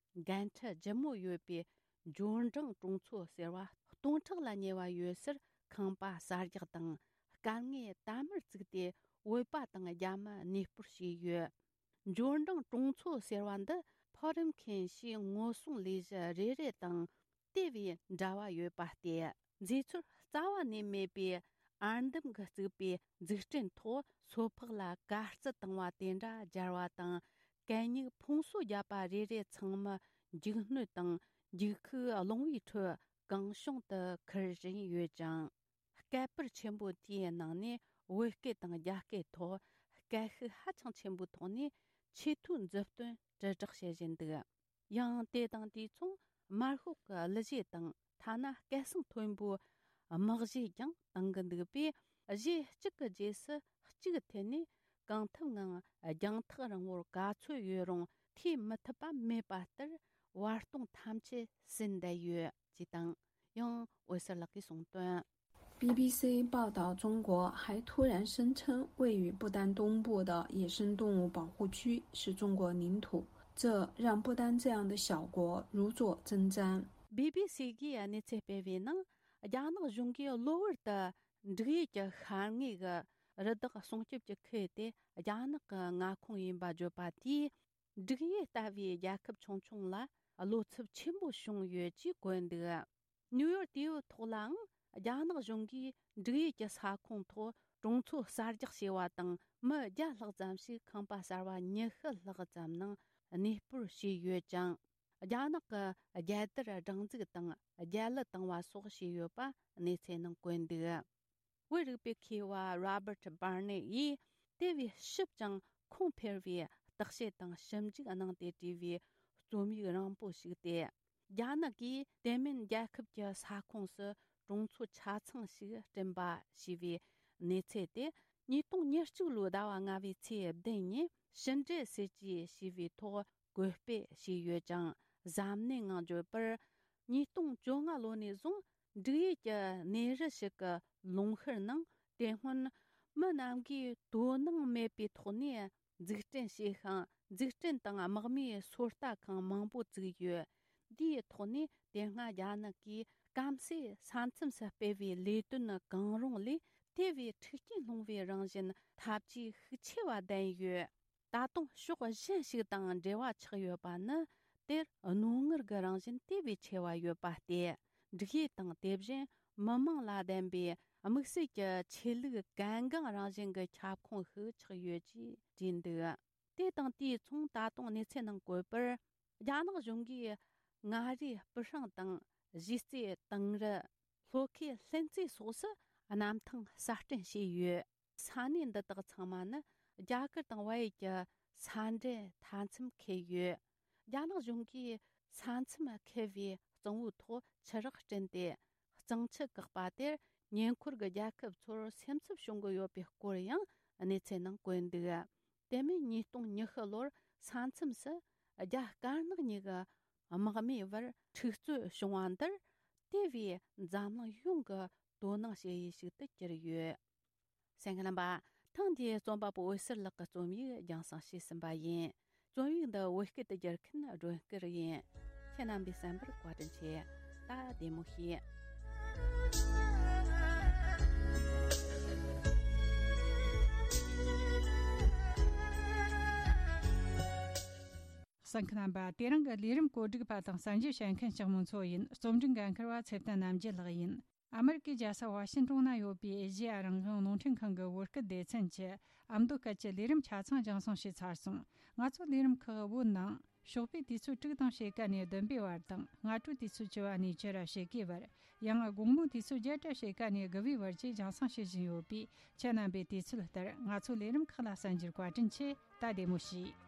འགན་འཁྲི་ལྗིད་མོ་ཡོད་པའི་འབྱོར་འབྲིང་གྲོང་ཚོ་ཟེར་བ་སྟོང་ཕྲག་ལ་ཉེ་བ་ཡོད་སར། ཁང་པ་གསར་རྒྱག་དང་། དཀའ་ངལ་དལ་མོར་བཙུགས་ཏེ། བོད་པ་དང་རྒྱ་མི་གནས་སྤོར་བྱས་ཡོད། འབྱོར་འབྲིང་གྲོང་ཚོ་ཟེར་བ་འདི་ཕོ་རིམ་མཁན་ཞིག་ངོ་སྲུང་ལས་གཞི་རེ་རེ་དང་དེ་བས་འབྲེལ་བ་ཡོད་པ་སྟེ། མཛེས་ཚོར་རྩ་བ་ནས་མེད་པའི་ཨར་འདམ་གྱིས་བཙུགས་པའི་འཛུགས་སྐྲུན་ཐོག་སོ་ཕག་ལ་དཀའ་སྤྱད་བཏང་བ་དེ་འདྲ་སྦྱར་བ་དང་། གད་སྙིགས་ཕུང་གསོ་བརྒྱབ་པ་རེ་རེ་ཚང་མ་འཇིགས་སྣོད་དང་ འགྱིག་ཁུག་རླུང་བུའི་ཁྲོད་གང་བྱུང་དུ་ཁུར་བཞིན་ཡོད་ཅིང་། སྐད་སྤུར་ཆེན་པོ་དེའི་ནང་ནས་བོད་སྐད་དང་རྒྱ་སྐད་ཐོག་སྐད་ཤུགས་ཧ་ཅང་ཆེན་པོའི་ཐོག་ནས་ཆེས་མཐོའི་མཛུབ་སྟོན་དྲིལ་བསྒྲགས་བྱེད་བཞིན་འདུག། ཡང་དེ་དང་དུས་མཚུངས་དམར་ཤོག་གི་གླུ་གཞས་དང་ཐ་ན་སྐད་གསང་མཐོན་པོའི་དམག་གཞས་ཀྱང་གཏོང་གི་འདུག་པས། གཞས་གཅིག་གི་རྗེས་སུ་གཅིག་འཐེན་ནས་གང་ཐུབ་ངང་རྒྱང་ཐག་རིང་བོར་ག་ཚོད་ཡོད་རུང་ཐེ་མི་ཐུབ་པ་མེད་པ་ལྟར་བར་སྟོང་ཐམས་ཅད་ཟིན་བསྡད་ཡོད་ཅེས་དང་། ཡང་འོད་ཟེར་ལགས་ཀྱིས་གསུངས་དོན། ，B B C 报道，中国还突然声称位于不丹东部的野生动物保护区是中国领土，这让不丹这样的小国如坐针毡。 B B C གིས་གནས་ཚུལ་སྤེལ་བའི་ནང་། རྒྱ་ནག་གཞུང་གིས་གློ་བུར་དུ་འབྲུག་ཡུལ་གྱི་ཤར་ངོས་ཀྱི་རི་དྭགས་སྲུང་སྐྱོབ་ཀྱི་ཁུལ་དེ་རྒྱ་ནག་གི་མངའ་ཁོངས་ཡིན་པ་བརྗོད་པ་དེས། འབྲུག་ཡུལ་ལྟ་བུའི་རྒྱལ་ཁབ་ཆུང་ཆུང་ལ་བློ་འཚབ་ཆེན་པོ་བྱུང་ཡོད་ཅེས་བཀོད་འདུག། ནིའུ་ཡོག་དེའུ་ཐོག་ལའང་རྒྱ་ནག་གཞུང་གིས་འབྲུག་ཡུལ་གྱི་ས་ཁོངས་ཐོག་གྲོང་ཚོ་གསར་རྒྱག་བྱས་པ་དང་། མི་བརྒྱ་ལྷག་ཙམ་ཞིག་ཁང་པ་གསར་བ་ཉི་ཤུ་ལྷག་ཙམ་ནང་གནས་སྤོར་བྱས་ཡོད་ཅིང་། རྒྱ་ནག་གི་རྒྱལ་དར་སྒྲེང་འཛུགས་དང་རྒྱལ་གླུ་བཏང་བ་སོགས་བྱས་ཡོད་པ་གནས་ཚུལ་ནང་བཀོད་འདུག། བོད་རིག་པའི་མཁས་པ་Robert Barnett ཡིས་དེ་བས་ཞིབ་ཅིང་ཁུངས་འཕེར་བའི་བརྟག་དཔྱད་དང་ཞིབ་འཇུག་གནང་སྟེ་བྲིས་པའི་རྩོམ་ཡིག་རིང་པོ་ཞིག་སྟེ། རྒྱ་ནག་གིས་དེ་མིན་རྒྱལ་ཁབ་ཀྱི་ས་ཁོངས་སུ་གྲོང་ཚོ་ཆ་ཚང་ཞིག་བསྐྲུན་པ་ཞེས་པའི་གནས་ཚུལ་དེ་ཉིས་སྟོང་ཉེར་གཅིག་ལོའི་ཟླ་བ་ལྔ་པའི་ཚེས་བདུན་ཉིན་ཕྱི་འབྲེལ་སྲིད་ཇུས་ཞེས་པའི་ཐོག་བཀོད་སྤེལ་བྱས་ཡོད་ཅིང་། གཟབ་ནན་ངང་བརྗོད་པར། ཉིས་སྟོང་བཅོ་ལྔ་ལོ་ནས་བཟུང་འབྲུག་ཡུལ་གྱི་གནས་རི་ཞིག་གི་ལུང་ཤུར་ནང་དེ་སྔོན་མི་རྣམས་ཀྱིས་དོ་སྣང་མེད་པའི་ཐོག་ནས་འཛུགས་སྐྲུན་བྱས་ཤིང་། འཛུགས་སྐྲུན་དང་དམག་མིའི་སོ་ལྟ་ཁང་མང་པོ་བཙུགས་ཡོད། འདིའི་ཐོག་ནས་དེ་སྔ་རྒྱ་ནག་གིས་སྐམ་སའི་ས་མཚམས་སུ་སྤེལ་བའི་ལས་དོན་གང་རུང་ལས་དེ་བས་མཁྲེགས་སྐྱེན་སློང་བའི་རང་བཞིན་ཐབས་ཇུས་ཤུགས་ཆེ་བ་ལྡན་ཡོད། ད་དུང་ཕྱོགས་གཞན་ཞིག་དང་འབྲེལ་བ་ཆགས་ཡོད་པ་ནི། དེར་རྣོ་ངར་གྱི་རང་བཞིན་དེ་བས་ཆེ་བ་ཡོད་པ་སྟེ། འབྲུག་ཡུལ་དང་དེ་བཞིན་མི་མང་ལ་ལྡན་པའི་དམིགས་བསལ་གྱི་ཆོས་ལུགས་གལ་འགངས་རང་བཞིན་གྱི་ཁྱབ་ཁོངས་ཤིག་ཆགས་ཡོད་ཅེས་བྲིས་འདུག། དེ་དང་དུས་མཚུངས་ད་དུང་གནས་ཚུལ་ནང་བཀོད་པར། རྒྱ་ནག་གཞུང་གིས་མངའ་རིས་སྤུ་ཧྲེང་དང་གཞིས་རྩེ་དིང་རི། ལྷོ་ཁའི་ལྷུན་རྩེ་སོགས་སུ་གནམ་ཐང་གསར་སྐྲུན་བྱས་ཡོད། ས་གནས་འདི་དག་ཚང་མ་ནི་རྒྱ་གར་དང་བལ་ཡུལ་གྱི་ས་འབྲེལ་མཐའ་མཚམས་འཁེལ་ཡོད། རྒྱ་ནག་གཞུང་གིས་ས་མཚམས་འཁེལ་བའི་གཙང་བོའི་ཐོག་ཆུ་རགས་བསྐྲུན་ཏེ། གཙང་ཆུ་བཀག་པ་དེར་ཉེ་འཁོར་གྱི་རྒྱལ་ཁབ་ཚོར་སེམས་འཚབ་བྱུང་གི་ཡོད་པའི་སྐོར་ཡང་གནས་ཚུལ་ནང་བཀོད་འདུག། དེ་མིན་ཉིས་སྟོང་ཉི་ཤུ་ལོར་ས་མཚམས་སུ་རྒྱ་དཀར་ནག་གཉིས་ཀྱི་དམག་མིའི་བར་འཁྲུག་རྩོད་བྱུང་བ་འདིར་དེ་བས་འཛམ་གླིང་ཡོངས་ཀྱི་དོ་སྣང་བྱེད་ཡུལ་ཞིག་ཏུ་གྱུར་ཡོད། གསན་མཁན་རྣམ་པ། ཐེངས་འདིའི་རྩོམ་པ་པོ་འོད་ཟེར་ལགས་ཀྱི་རྩོམ་ཡིག་རྒྱང་སྲིང་བྱས་ཟིན་པ་ཡིན། རྩོམ་ཡིག་འདི་བོད་སྐད་དུ་བསྒྱུར་མཁན་སྒྲོན་སྐུ་རུ་ཡིན། ཁྱེད་རྣམ་པས་གསན་པར་བཀའ་དྲིན་ཆེ། ད་བདེ་མོ་བྱོས། གསན་མཁན་རྣམ་པ། དེ་རིང་གི་ལས་རིམ་བཀོད་སྒྲིག་པ་དང་གསན་རྒྱུ་བྱེད་མཁན་ལྕགས་མོ་མཚོ་ཡིན། རྩོམ་སྒྲིག་འགན་འཁུར་བ་ཚེ་བརྟན་རྣམ་རྒྱལ་ལགས་ཡིན། ཨ་མེ་རི་ཀའི་རྒྱལ་ས་ཝ་ཤིང་ཏོན་ན་ཡོད་པའི་ཨེ་ཤེ་ཡ་རང་དབང་རླུང་འཕྲིན་ཁང་གི་བོད་སྐད་སྡེ་ཚན་གྱི་ཨ་མདོ་སྐད་ཀྱི་ལས་རིམ་ཆ་ཚང་རྒྱང་སྲིང་བྱས་ཚར་སོང་། ང་ཚོའི་ལས་རིམ་ཁག་བོད་ནང་ཞོགས་པའི་དུས་ཚོད་དྲུག་དང་ཕྱེད་ཀ་ནས་བདུན་པའི་བར་དང་། སྔ་དྲོའི་དུས་ཚོད་བཅུ་པ་ནས་བཅུ་ར་ཕྱེད་ཀའི་བར། ཡང་དགོང་མོའི་དུས་ཚོད་བརྒྱད་དྲ་ཕྱེད་ཀ་ནས་དགུ་པའི་བར་བཅས་རྒྱང་སྲིང་བྱེད་བཞིན་ཡོད་པས། ཁྱེད་རྣམ་པས་དུས་ཚོད་ལྟར་ང་ཚོའི་ལས་རིམ་ཁག་ལ་གསན་རྒྱུར་བཀའ་དྲིན་ཆེ། ད་བདེ་མོ་བྱོས།